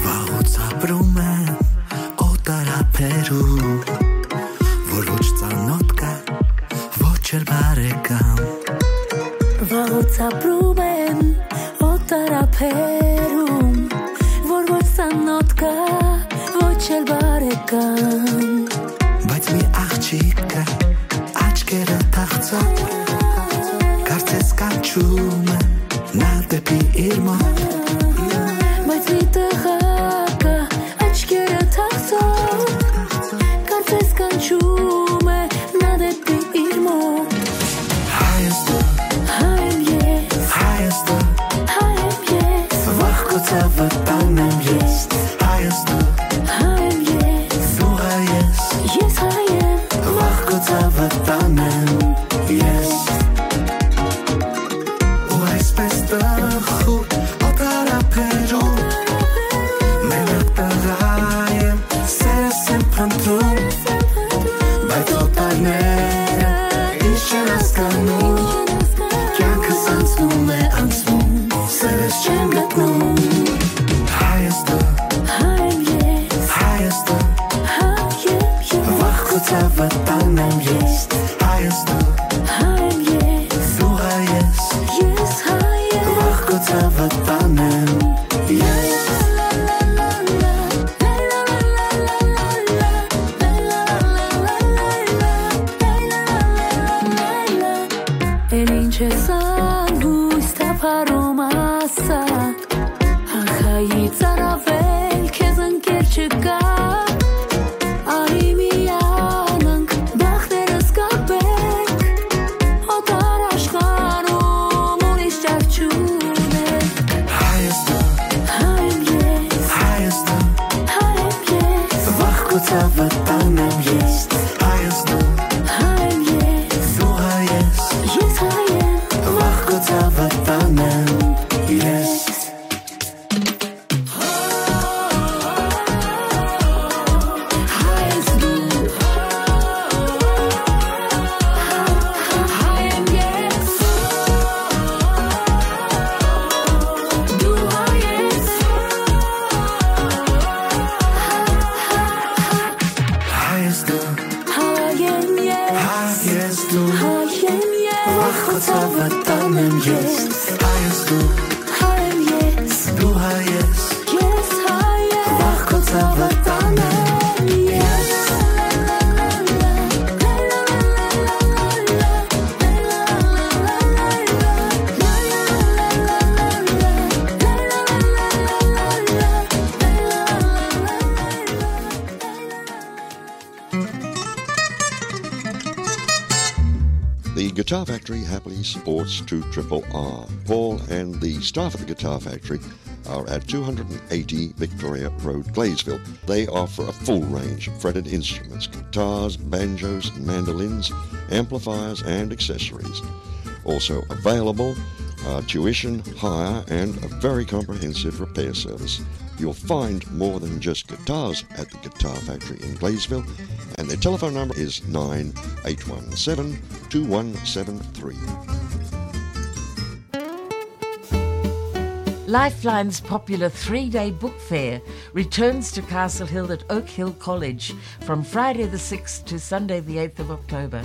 Վաղուց ապրում եմ օտար ափերում, որ ոչ ծանոթ կա, ոչ էլ բարեկամ։ Վաղուց ապրում եմ օտար ափերում, որ ոչ ծանոթ կա, ոչ էլ բարեկամ։ Բայց մի աղջիկ կա, աչքերը թախծող, կարծես կանչում է նա դեպի իր մոտ։ Բայց մի տղա կա, աչքերը թախծող, կարծես կանչում է նա դեպի իր մոտ։ Հայ ես դու, հայ եմ ես, հայ ես դու, հայ եմ ես, վաղ քո ցավը տանեմ ես։ Հայ ես դու, հայ եմ ես, դու հայ ես, ես հայ եմ, վաղ քո ցավը տանեմ ես։ Ու այսպես տխուր օտար ափերում, մենակ տղա եմ, սերս եմ փնտրում, բայց օտարները ինչ չեն հասկանում, Ցաւը տանեմ ես, հայ ես դու, հայ եմ ես, դու հայ ես, ես հայ եմ, վաղ քո ցաւը տանեմ ես։ Էլ ինչ ես ալ, լոյս թափառում ասա, ախայի ծարավել քեզ ընկեր չկայ, արի միանանք, բախտերս կապենք, օտար աշխարհում ուրիշ ճար չունենք։ Հայ ես դու, հայ եմ ես, հայ ես դու, հայ եմ ես, վաղ քո ցաւը տանեմ ես, հայ ես դու, հայ եմ ես, դու հայ ես, ես հայ եմ, վաղ քո ցաւը տանեմ ես։ Հայ ես դու, հայ եմ ես, հայ ես դու, հայ եմ ես, վաղ քո ցաւը տանեմ ես, հայ ես դու, հայ եմ ես, դու հայ ես, ես հայ եմ, վաղ քո ցաւը տանեմ ես։ The Guitar Factory happily supports two triple R. Paul and the staff at the Guitar Factory are at two hundred and eighty Victoria Road, Gleysville. They offer a full range of fretted instruments, guitars, banjos, mandolins, amplifiers, and accessories. Also available are tuition, hire, and a very comprehensive repair service. You'll find more than just guitars at the Guitar Factory in Gleysville, and their telephone number is nine eight one seven two one seven three. Lifeline's popular three-day book fair returns to Castle Hill at Oak Hill College from Friday the sixth to Sunday the eighth of October.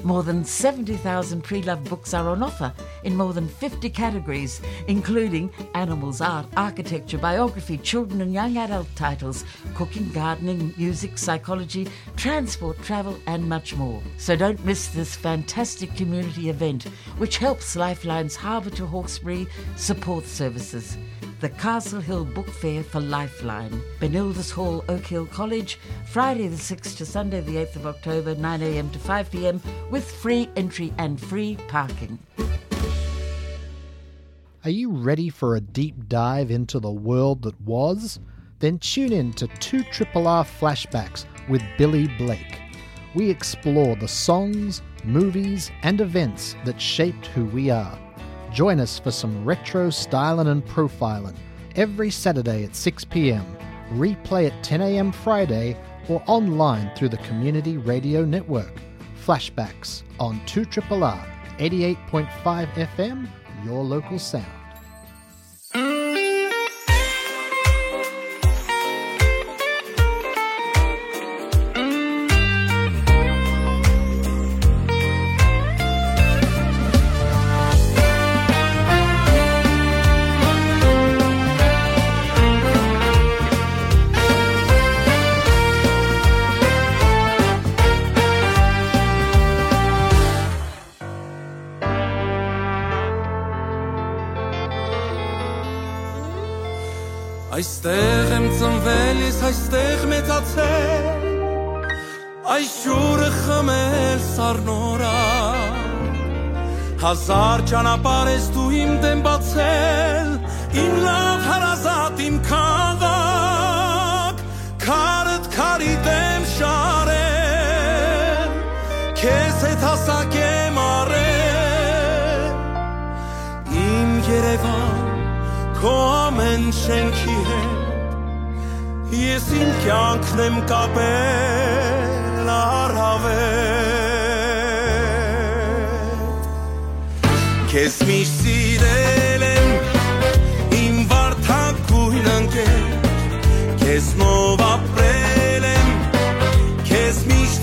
More than seventy thousand pre-loved books are on offer in more than fifty categories, including animals, art, architecture, biography, children and young adult titles, cooking, gardening, music, psychology, transport, travel, and much more. So don't miss this fantastic community event, which helps Lifeline's Harbour to Hawkesbury support services. The Castle Hill Book Fair for Lifeline, Benildus Hall, Oak Hill College, Friday the sixth to Sunday the eighth of October, nine a.m. to five p.m., with free entry and free parking. Are you ready for a deep dive into the world that was? Then tune in to two triple R Flashbacks with Billy Blake. We explore the songs, movies, and events that shaped who we are. Join us for some retro styling and profiling every Saturday at six p.m., replay at ten a.m. Friday, or online through the Community Radio Network. Flashbacks on two triple R, eighty-eight point five F M, your local sound. Այստեղ եմ ծնվել ես, այստեղ մեծացել, այս ջուրը խմել սառնորան։ Հազար ճանապարհ ես դու իմ դեմ բացել, իմ լավ հարազատ, իմ քաղաք, քարդ քարի դեմ շարել, քեզ հետ հասակ եմ առել, իմ Երևան, քո ամեն շենքի հետ, ես իմ կյանքն եմ կապել առավել։ Քեզ միշտ սիրել եմ, իմ վարդագույն ընկեր, քեզնով ապրել եմ, քեզ միշտ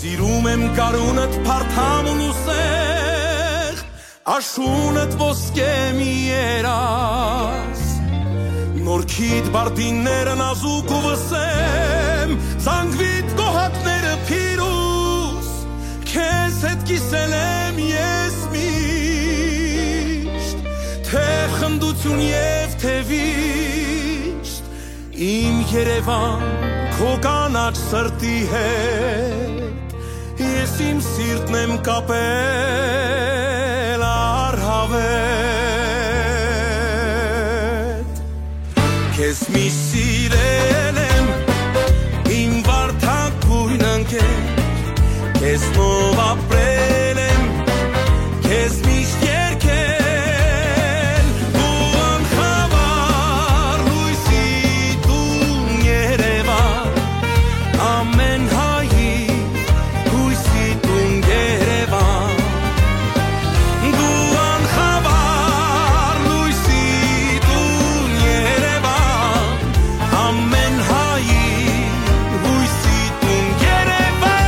Սիրում եմ գարունդ փարթամ ու սեղ, աշունդ ոսկե մի երազ։ Նորքիդ բարդինները նազուկ ու վսեմ, զանգվիդ կոհակները փիրուզ, քեզ հետ կիսել եմ ես միշտ, թէ խնդություն եւ թէ վիշտ, իմ Երեւան, քո կանաչ սրտի հետ, ես իմ սիրտն եմ կապել առհավետ։ Քեզ միշտ սիրել եմ, իմ վարդագոյն ընկեր, քեզնով ապրել եմ, քեզ միշտ երգել, դու անխավար լույսի տուն Երևան, ամեն հայի հույսի տուն Երևան, դու անխավար լույսի տուն Երևան, ամեն հայի հույսի տուն Երևան։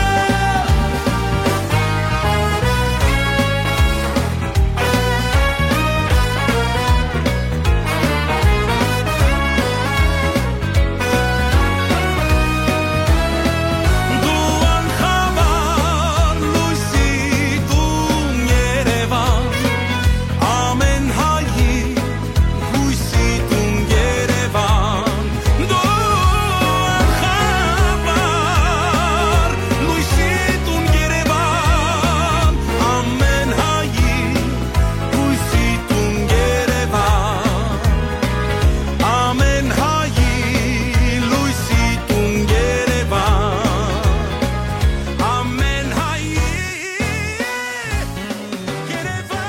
Դու անխավար լույսի տուն Երևան, ամեն հայի հույսի տուն Երևան, դու անխավար լույսի տուն Երևան, ամեն հայի հույսի տուն Երևան, ամեն հայի լույսի տուն Երևան, ամեն հայի Երևան։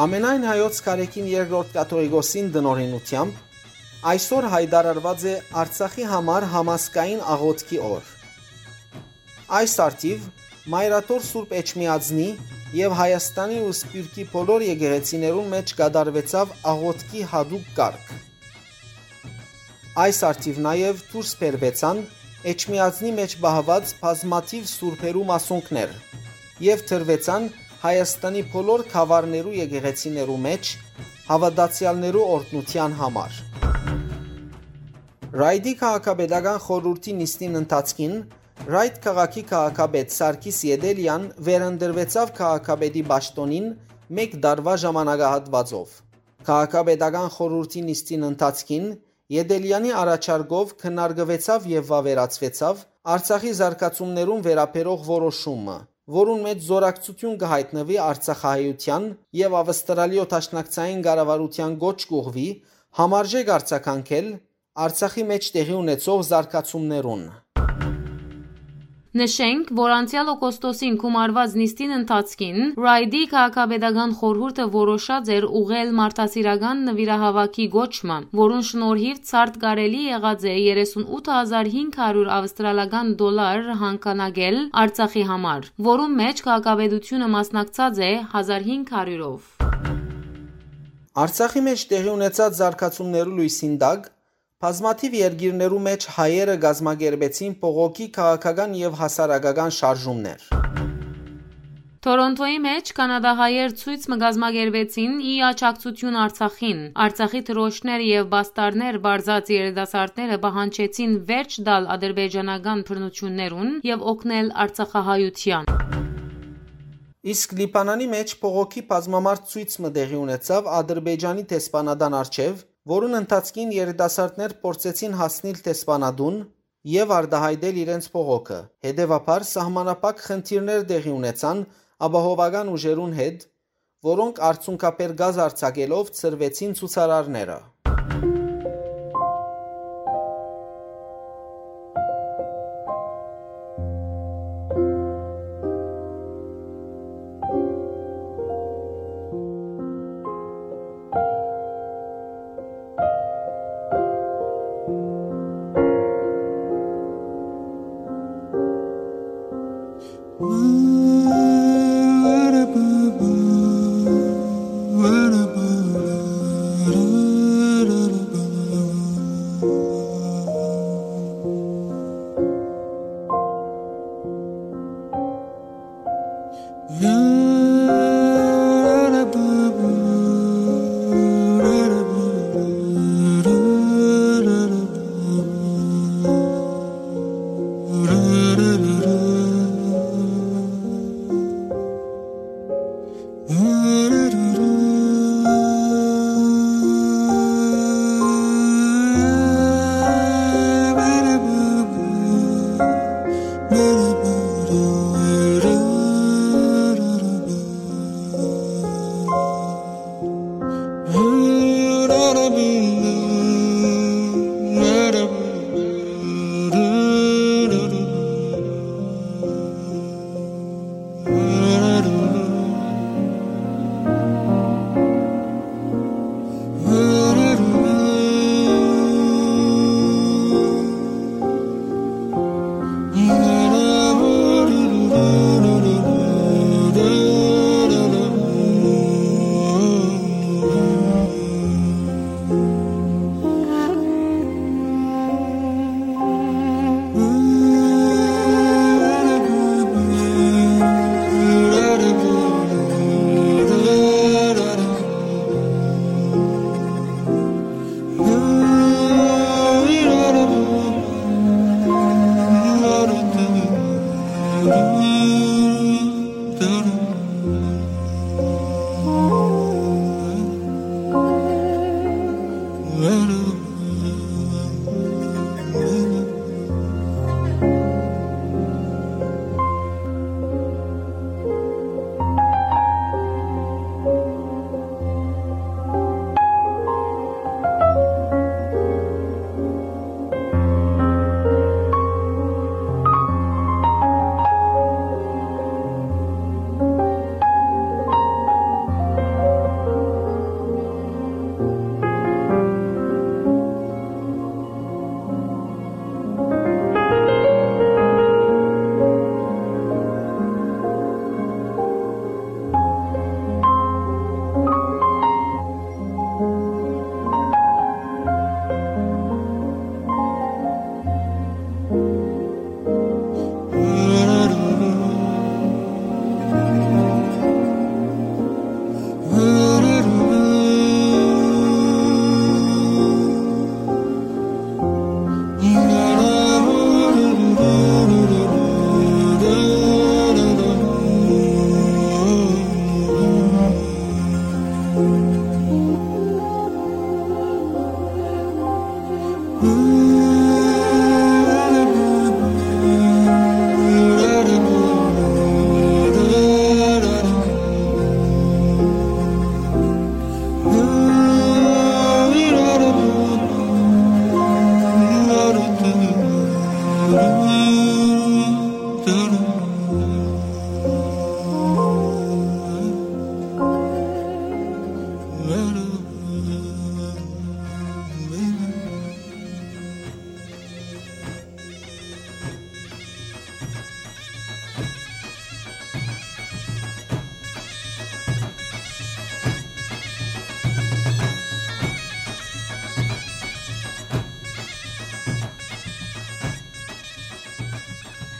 Ամենայն հայոց կարեկին երկրորդ կաթողիկոսին տնօրինութեամբ այսօր յայտարարուած է Արցախի համար համազգային աղօթքի օր։ Այս առթիւ Մայրաթոր Սուրբ Էջմիածնի եւ Հայաստանի ու Սփիւռքի բոլոր եկեղեցիներուն մէջ կատարուեցաւ աղօթքի յատուկ կարգ։ Այս առթիւ նաեւ դուրս բերուեցան Էջմիածնի մէջ պահուած բազմաթիւ սուրբերու մասունքներ եւ դրուեցան Հայաստանի բոլոր գաւառներու եկեղեցիներու մէջ հաւատացեալներու օրհնութեան համար։ Ռայդի քաղաքապետական խորհուրդի նիստին ընթացքին Ռայդ քաղաքի քաղաքապետ Սարգիս Ետելեան վերընտրուեցաւ քաղաքապետի պաշտօնին մէկ տարուայ ժամանակահատուածով։ Քաղաքապետական խորհուրդի նիստին ընթացքին Ետելեանի առաջարկով քննարկուեցաւ եւ վաւերացուեցաւ Արցախի զարգացումներուն վերաբերող որոշումը, որուն մէջ զօրակցութիւն կը յայտնուի արցախահայութեան եւ Աւստրալիոյ դաշնակցային կառավարութեան կոչ կ'ուղղուի համարժեք արձագանքել Արցախի մէջ տեղի ունեցող զարգացումներուն։ Նշենք, որ անցեալ օգոստոսին գումարուած նիստին ընթացքին Ռայդի քաղաքապետական խորհուրդը որոշած էր ուղղել մարդասիրական նուիրահաւաքի կոչմը, որուն շնորհիւ ցարդ կարելի եղած է երեսուն ութ հազար հինգ հարիւր աւստրալական դոլար հանգանակել Արցախի համար, որուն մէջ քաղաքապետութիւնը մասնակցած է հազար հինգ հարիւրով։ Արցախի մէջ տեղի ունեցած զարգացումներու լոյսին տակ բազմաթիւ երկիրներու մէջ հայերը կազմակերպեցին բողոքի քաղաքական եւ հասարակական շարժումներ։ Թորոնթոյի մէջ կանադահայեր ցոյց մը կազմակերպեցին ի աջակցութիւն Արցախին։ Արցախի դրոշներ եւ պաստառներ պարզած երիտասարդները պահանջեցին վերջ տալ ադրբեջանական բռնութիւններուն եւ օգնել արցախահայութեան։ Իսկ Լիբանանի մէջ բողոքի բազմամարդ ցոյց մը տեղի ունեցաւ Ադրբեջանի դեսպանատան առջեւ, որուն ընթացքին երիտասարդներ փորձեցին հասնիլ դեսպանատուն եւ արտայայտել իրենց բողոքը։ Հետեւաբար սահմանափակ խնդիրներ տեղի ունեցան ապահովական ուժերուն հետ, որոնք արցունքաբեր գազ արձակելով ցրուեցին ցուցարարները։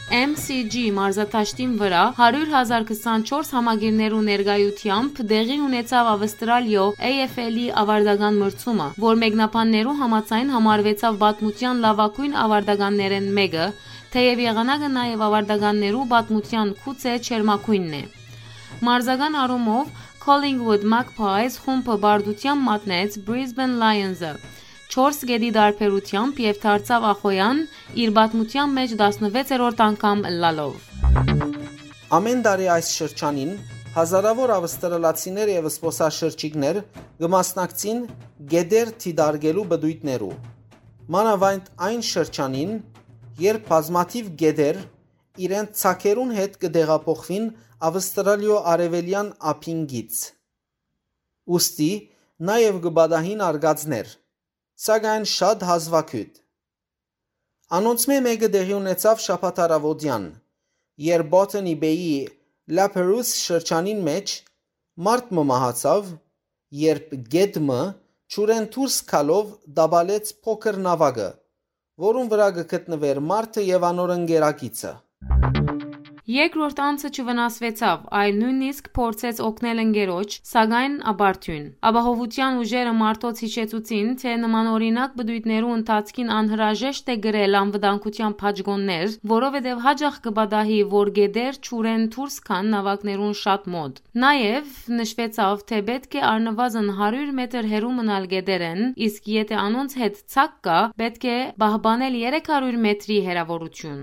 M C G մարզադաշտին վրայ հարիւր հազար քսանչորս համակիրներու ներկայութեամբ տեղի ունեցաւ Ավստրալիոյ A F L-ի ավարտական մրցումը, որ մեկնաբաններու համաձայն համարուեցաւ պատմութեան լաւագոյն ավարտականներէն մէկը, թէեւ եղանակը նաեւ ավարտականներու պատմութեան գուցէ ջերմագոյնն է։ Մարզական առումով Collingwood Magpies խումբը պարտութեամբ մատնեց Brisbane Lions-ը չորս կետի տարբերութեամբ եւ դարձաւ ախոյեան, իր պատմութեան մէջ տասնվեցերորդ անգամ ըլլալով։ Ամէն տարի այս շրջանին հազարաւոր ավստրալացիներ եւ զբօսաշրջիկներ կը մասնակցին գետեր դիտարկելու պտոյտներու, մանաւանդ այն շրջանին, երբ բազմաթիւ գետեր իրենց ծագերուն հետ կը տեղափոխուին Ավստրալիոյ արեւելեան ափին կից։ Ուստի նաեւ կը պատահին արկածներ, սակայն շատ հազուագիւտ։ Անոնցմէ մէկը տեղի ունեցաւ շաբաթ առաւօտեան, երբ Botany Bay-ի La Perouse շրջանին մէջ մարդ մը մահացաւ, երբ գետ մը ջուրէն դուրս գալով տապալեց փոքր նաւակը, որուն վրայ կը գտնուէր մարդը եւ անոր ընկերակիցը։ Երկրորդ անձը չվնասուեցաւ, այլ նոյնիսկ փորձեց օգնել ընկերոջ, սակայն ապարդիւն։ Ապահովութեան ուժերը մարդոց յիշեցուցին, թէ նմանօրինակ պտոյտներու ընթացքին անհրաժեշտ է կրել անվտանգութեան բաճկոններ, որովհետեւ յաճախ կը պատահի, որ գետեր ջուրէն դուրս գան նաւակներուն շատ մօտ։ Նաեւ նշուեցաւ, թէ պէտք է առնուազն հարիւր մետր հեռու մնալ գետերէն, իսկ եթէ անոնց հետ ծակ կայ, պէտք է պահպանել երեք հարիւր մետրի հեռաւորութիւն։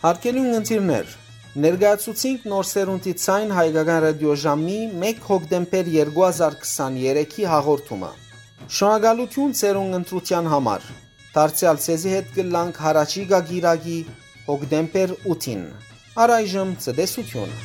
Հարգելի ունգընտիրներ, ներկայացուցինք Նոր Սերունդի Ձայն հայկական ռադիոժամի մէկ հոկտեմբեր երկու հազար քսաներեքի հաղորդումը։ Շնորհակալութիւն ձեր ունգընտրութեան համար։ Դարձեալ ձեզի հետ կ'ըլլանք յառաջիկայ կիրակի, հոկտեմբեր ութին։ Առայժմ ցտեսութիւն։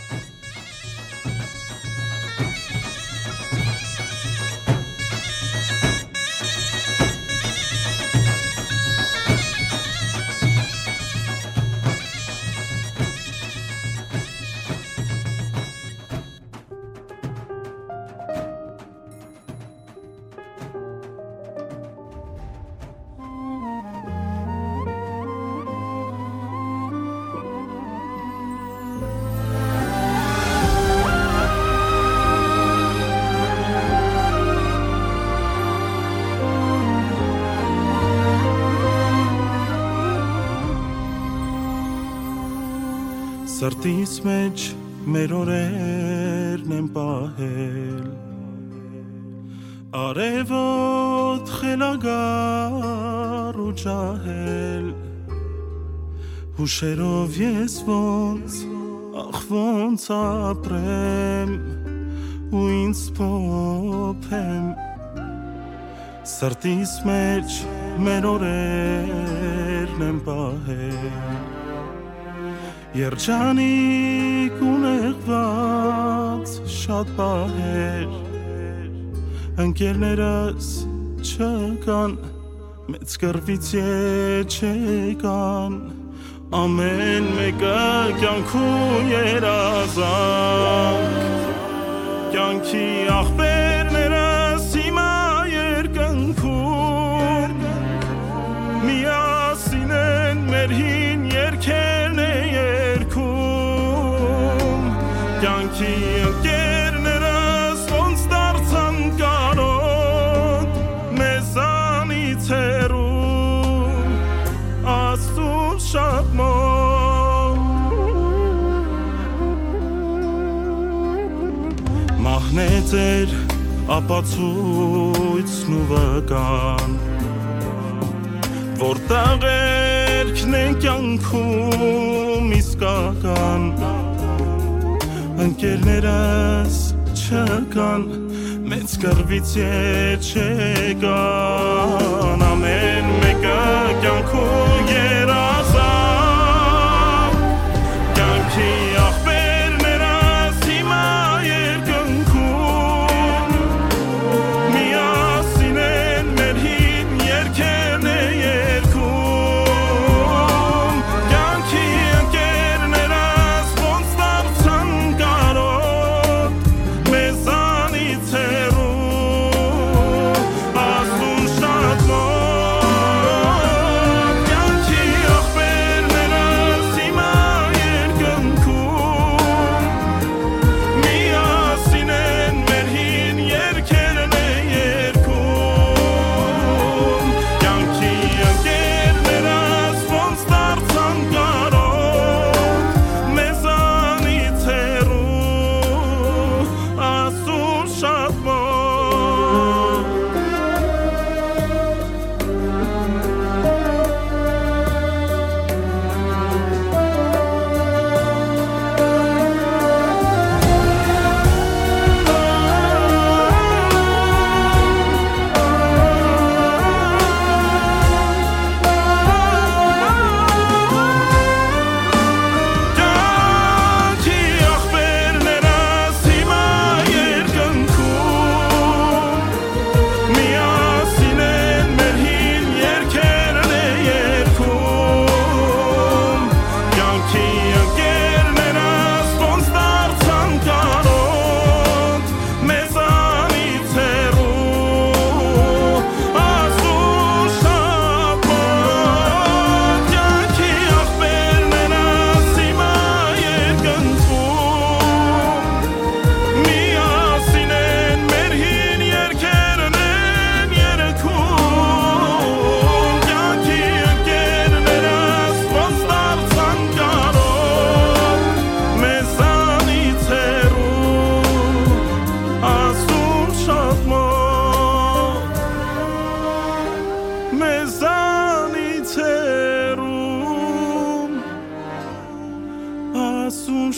Սրտիս մէջ մեր օրերն են պահել, արեւոտ խելագար ու ջահել, հուշերով ես ոնց, ախ, ոնց ապրեմ ու ինձ փոփեմ, սրտիս մէջ մեր օրերն են պահել։ Երջանիկ ու նեղուած շատ պահեր, ընկերներս չկան, մեծ կռուից ետ չեկան, ամէն մէկը կեանքու երազանք, կեանքի աղբերներս հիմա երկնքում, միասին են մեր հին երգերն է երգում, կեանքի ընկերներս ոնց դարձան կարօտ, մեզանից հեռու, Աստծուն շատ մոտ։ Մահն է ձեր ապացոյցն ու վկան, որ տաղերքն է կեանքում իսկական, ընկերներս չկան, մեծ կռուից ետ չեկան, ամէն մէկը կեանքու երազանք, կեանքի աղբերներս հիմա երկնքում, միասին են մեր հին երգերն է երգում, կեանքի ընկերներս ոնց դարձան կարօտ, մեզանից հեռու, Աստուն շատ մոտ, կեանքի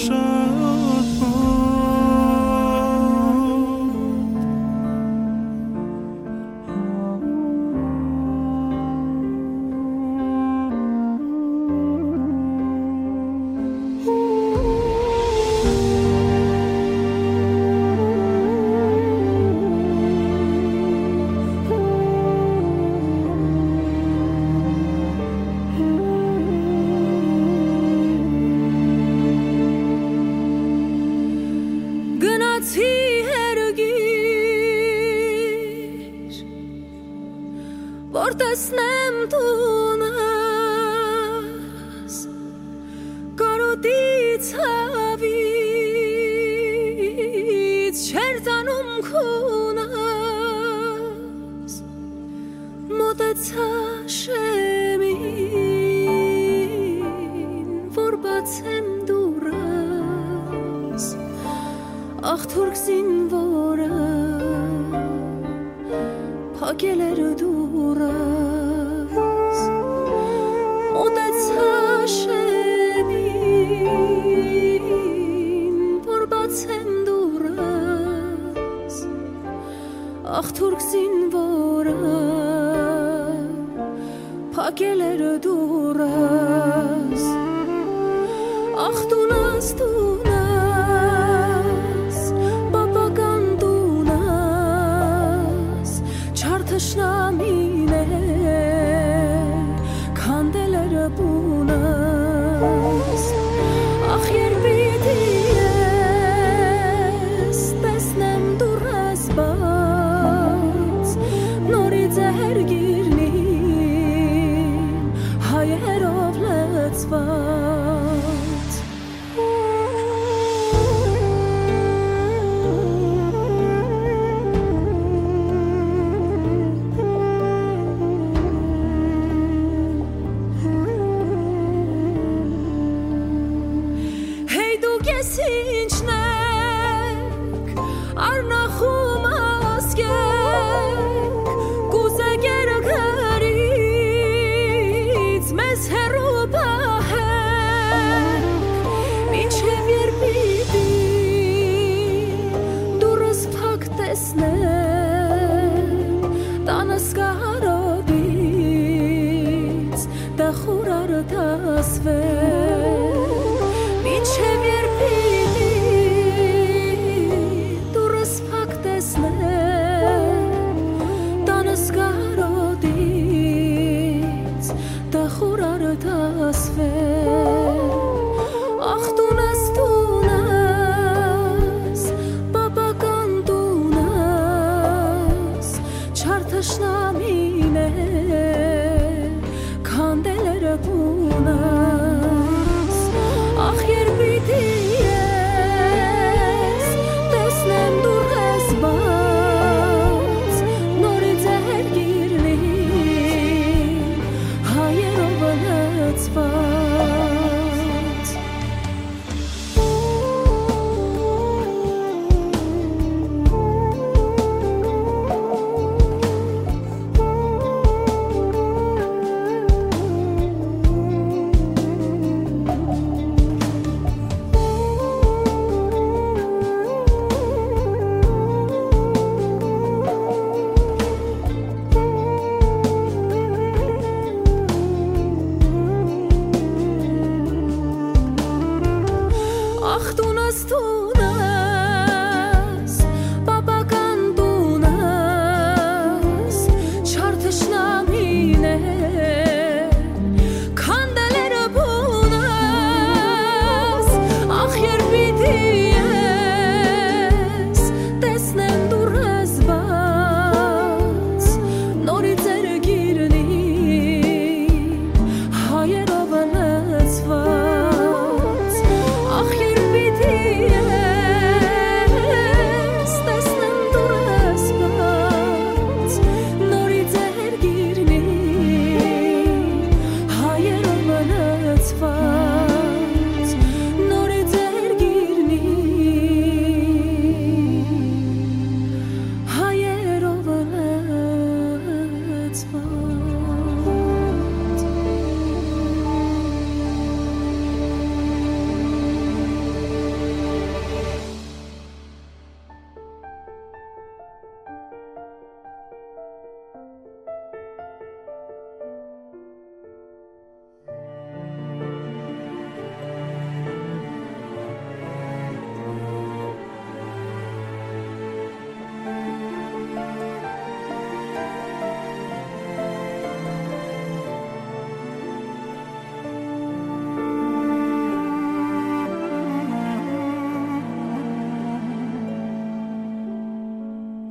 Շատ Գնացի հերգիր, որ տեսնեմ տունս, կարոտի ցաւից չէր տանում քունս, մօտեցայ շեմին, որ բացեմ դուռս, ախ թուրք զինուորը փակել էր դուռս, մօտեցայ շեմին, որ բացեմ դուռս, ախ թուրք զինուորը փակել էր դուռս, ախ տունս, տունս, պապական տունս, չար թշնամիներ քանդել էր պունս, ախ երբ պիտի ես տեսնեմ դուռս բաց, նորից է հերգիրն իմ հայերով լեցված։ Հեյ դուք ես ինչն եք, արնախում ասկեք, կուզեք երկրից մեզ հեռու պահեք, մինչև երբ պիտի դուռս փակ տեսնեմ, տանս կարոտից տխուր արտասվեմ, մինչև երբ պիտի դուռս փակ տեսնեմ, տանս կարոտից տխուր արտասվեմ, ախ տունս, տունս, պապական տունս, չար թշնամիներ քանդել էր պունս, ախ երբ պիտի ես տեսնեմ դուռս բաց, նորից է հերգիրն իմ հայերով լեցված։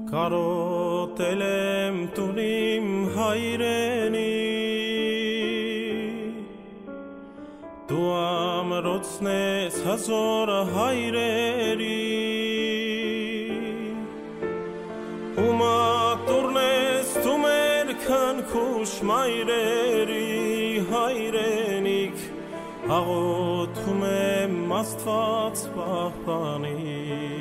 Կարոտել եմ տուն իմ հայրենի, դու ամրոցն ես հազոր հայրերի, ու մատուրն ես դու մեր քնքուշ մայրերի հայրենիք, աղոթում եմ Աստուած պահպանիր։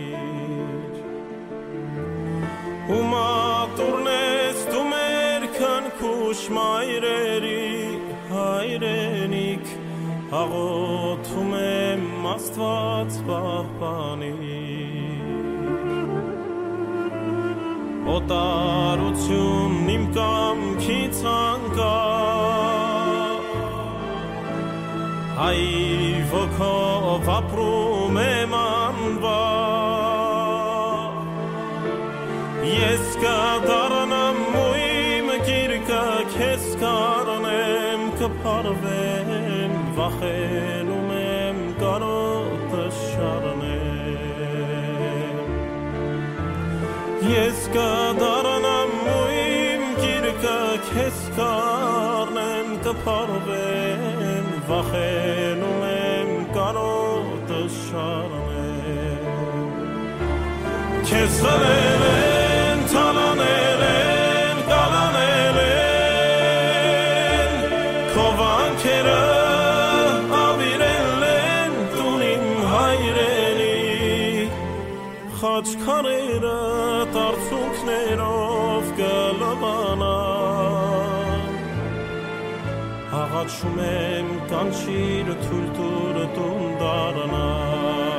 Ու մատուրն ես դու մեր քնքուշ մայրերի հայրենիք, աղոթում եմ Աստուած պահպանիր։ Օտարությունն իմ կամքից անկախ, հայ ոգով ապրում եմ անվախ։ Ես կդառնամ ու իմ գիրկը քեզ կառնեմ, կփարվեմ, վախենում եմ կարոտը շարնեմ։ Ես կդառնամ ու իմ գիրկը քեզ կառնեմ, կփարվեմ, վախենում եմ կարոտը շարնեմ։ Քեզ խլել են, թալանել են, կալանել են, քո վանքերը աւիրել են տուն իմ հայրենի, խաչքարերը արցունքներով կլվանան։ Աղաչում եմ, կանչիր, թույլ տուր տուն դառնամ,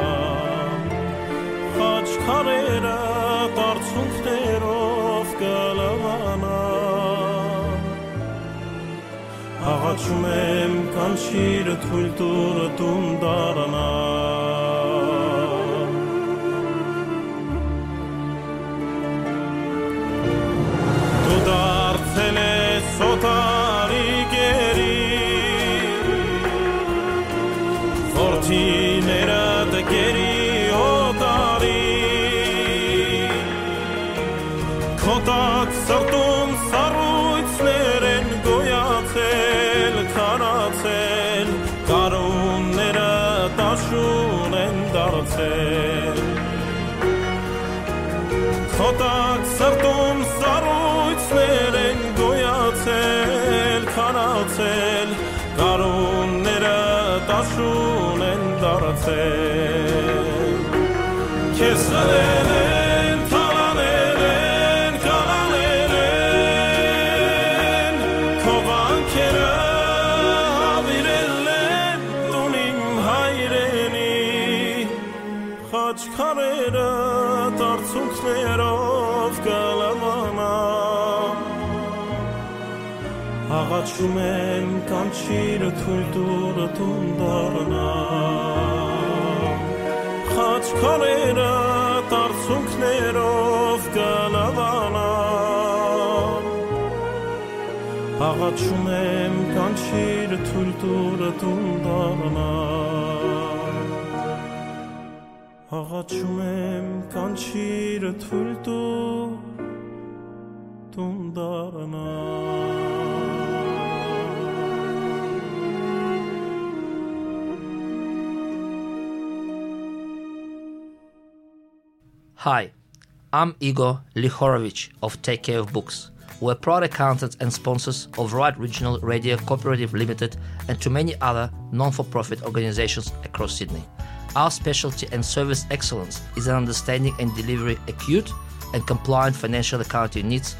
խաչքարերը արցունքներով կլվանան։ Աղաչում եմ, կանչիր, թույլ տուր տուն դառնամ։ Դու դարձել ես օտարի գերի, որդիներդ գերի օտարի, քո տակ սրտում սառույցներ են գոյացել, քարացել, գարունները դաշուն են դարձել։ Քո տակ սրտում սառույցներ են գոյացել, քարացել, գարունները դաշուն են դարձել։ Քեզ խլել են, թալանել են, կալանել են, քո վանքերը աւիրել են տուն իմ հայրենի, խաչքարերը արցունքներով կլվանան։ Աղաչում եմ, կանչիր, թույլ տուր տուն դառնամ, խաչքարերը արցունքներով կլվանան։ Աղաչում եմ, կանչիր, թույլ տուր տուն դառնամ։ Աղաչում եմ, կանչիր, թույլ տուր տուն դառնամ։ Hi, I'm Igor Lihorovich of Take Care of Books. We're proud accountants and sponsors of Right Regional Radio Cooperative Limited and to many other non-for-profit organizations across Sydney. Our specialty and service excellence is in understanding and delivery acute and compliant financial accounting needs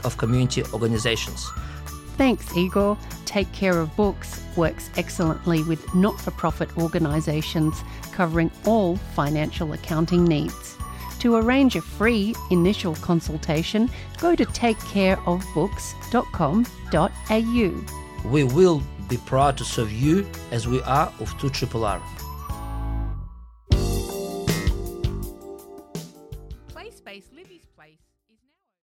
of community organizations. Thanks, Igor. Take Care of Books works excellently with not-for-profit organisations covering all financial accounting needs. To arrange a free initial consultation, go to take care of books dot com dot a u. We will be proud to serve you as we are of two triple R.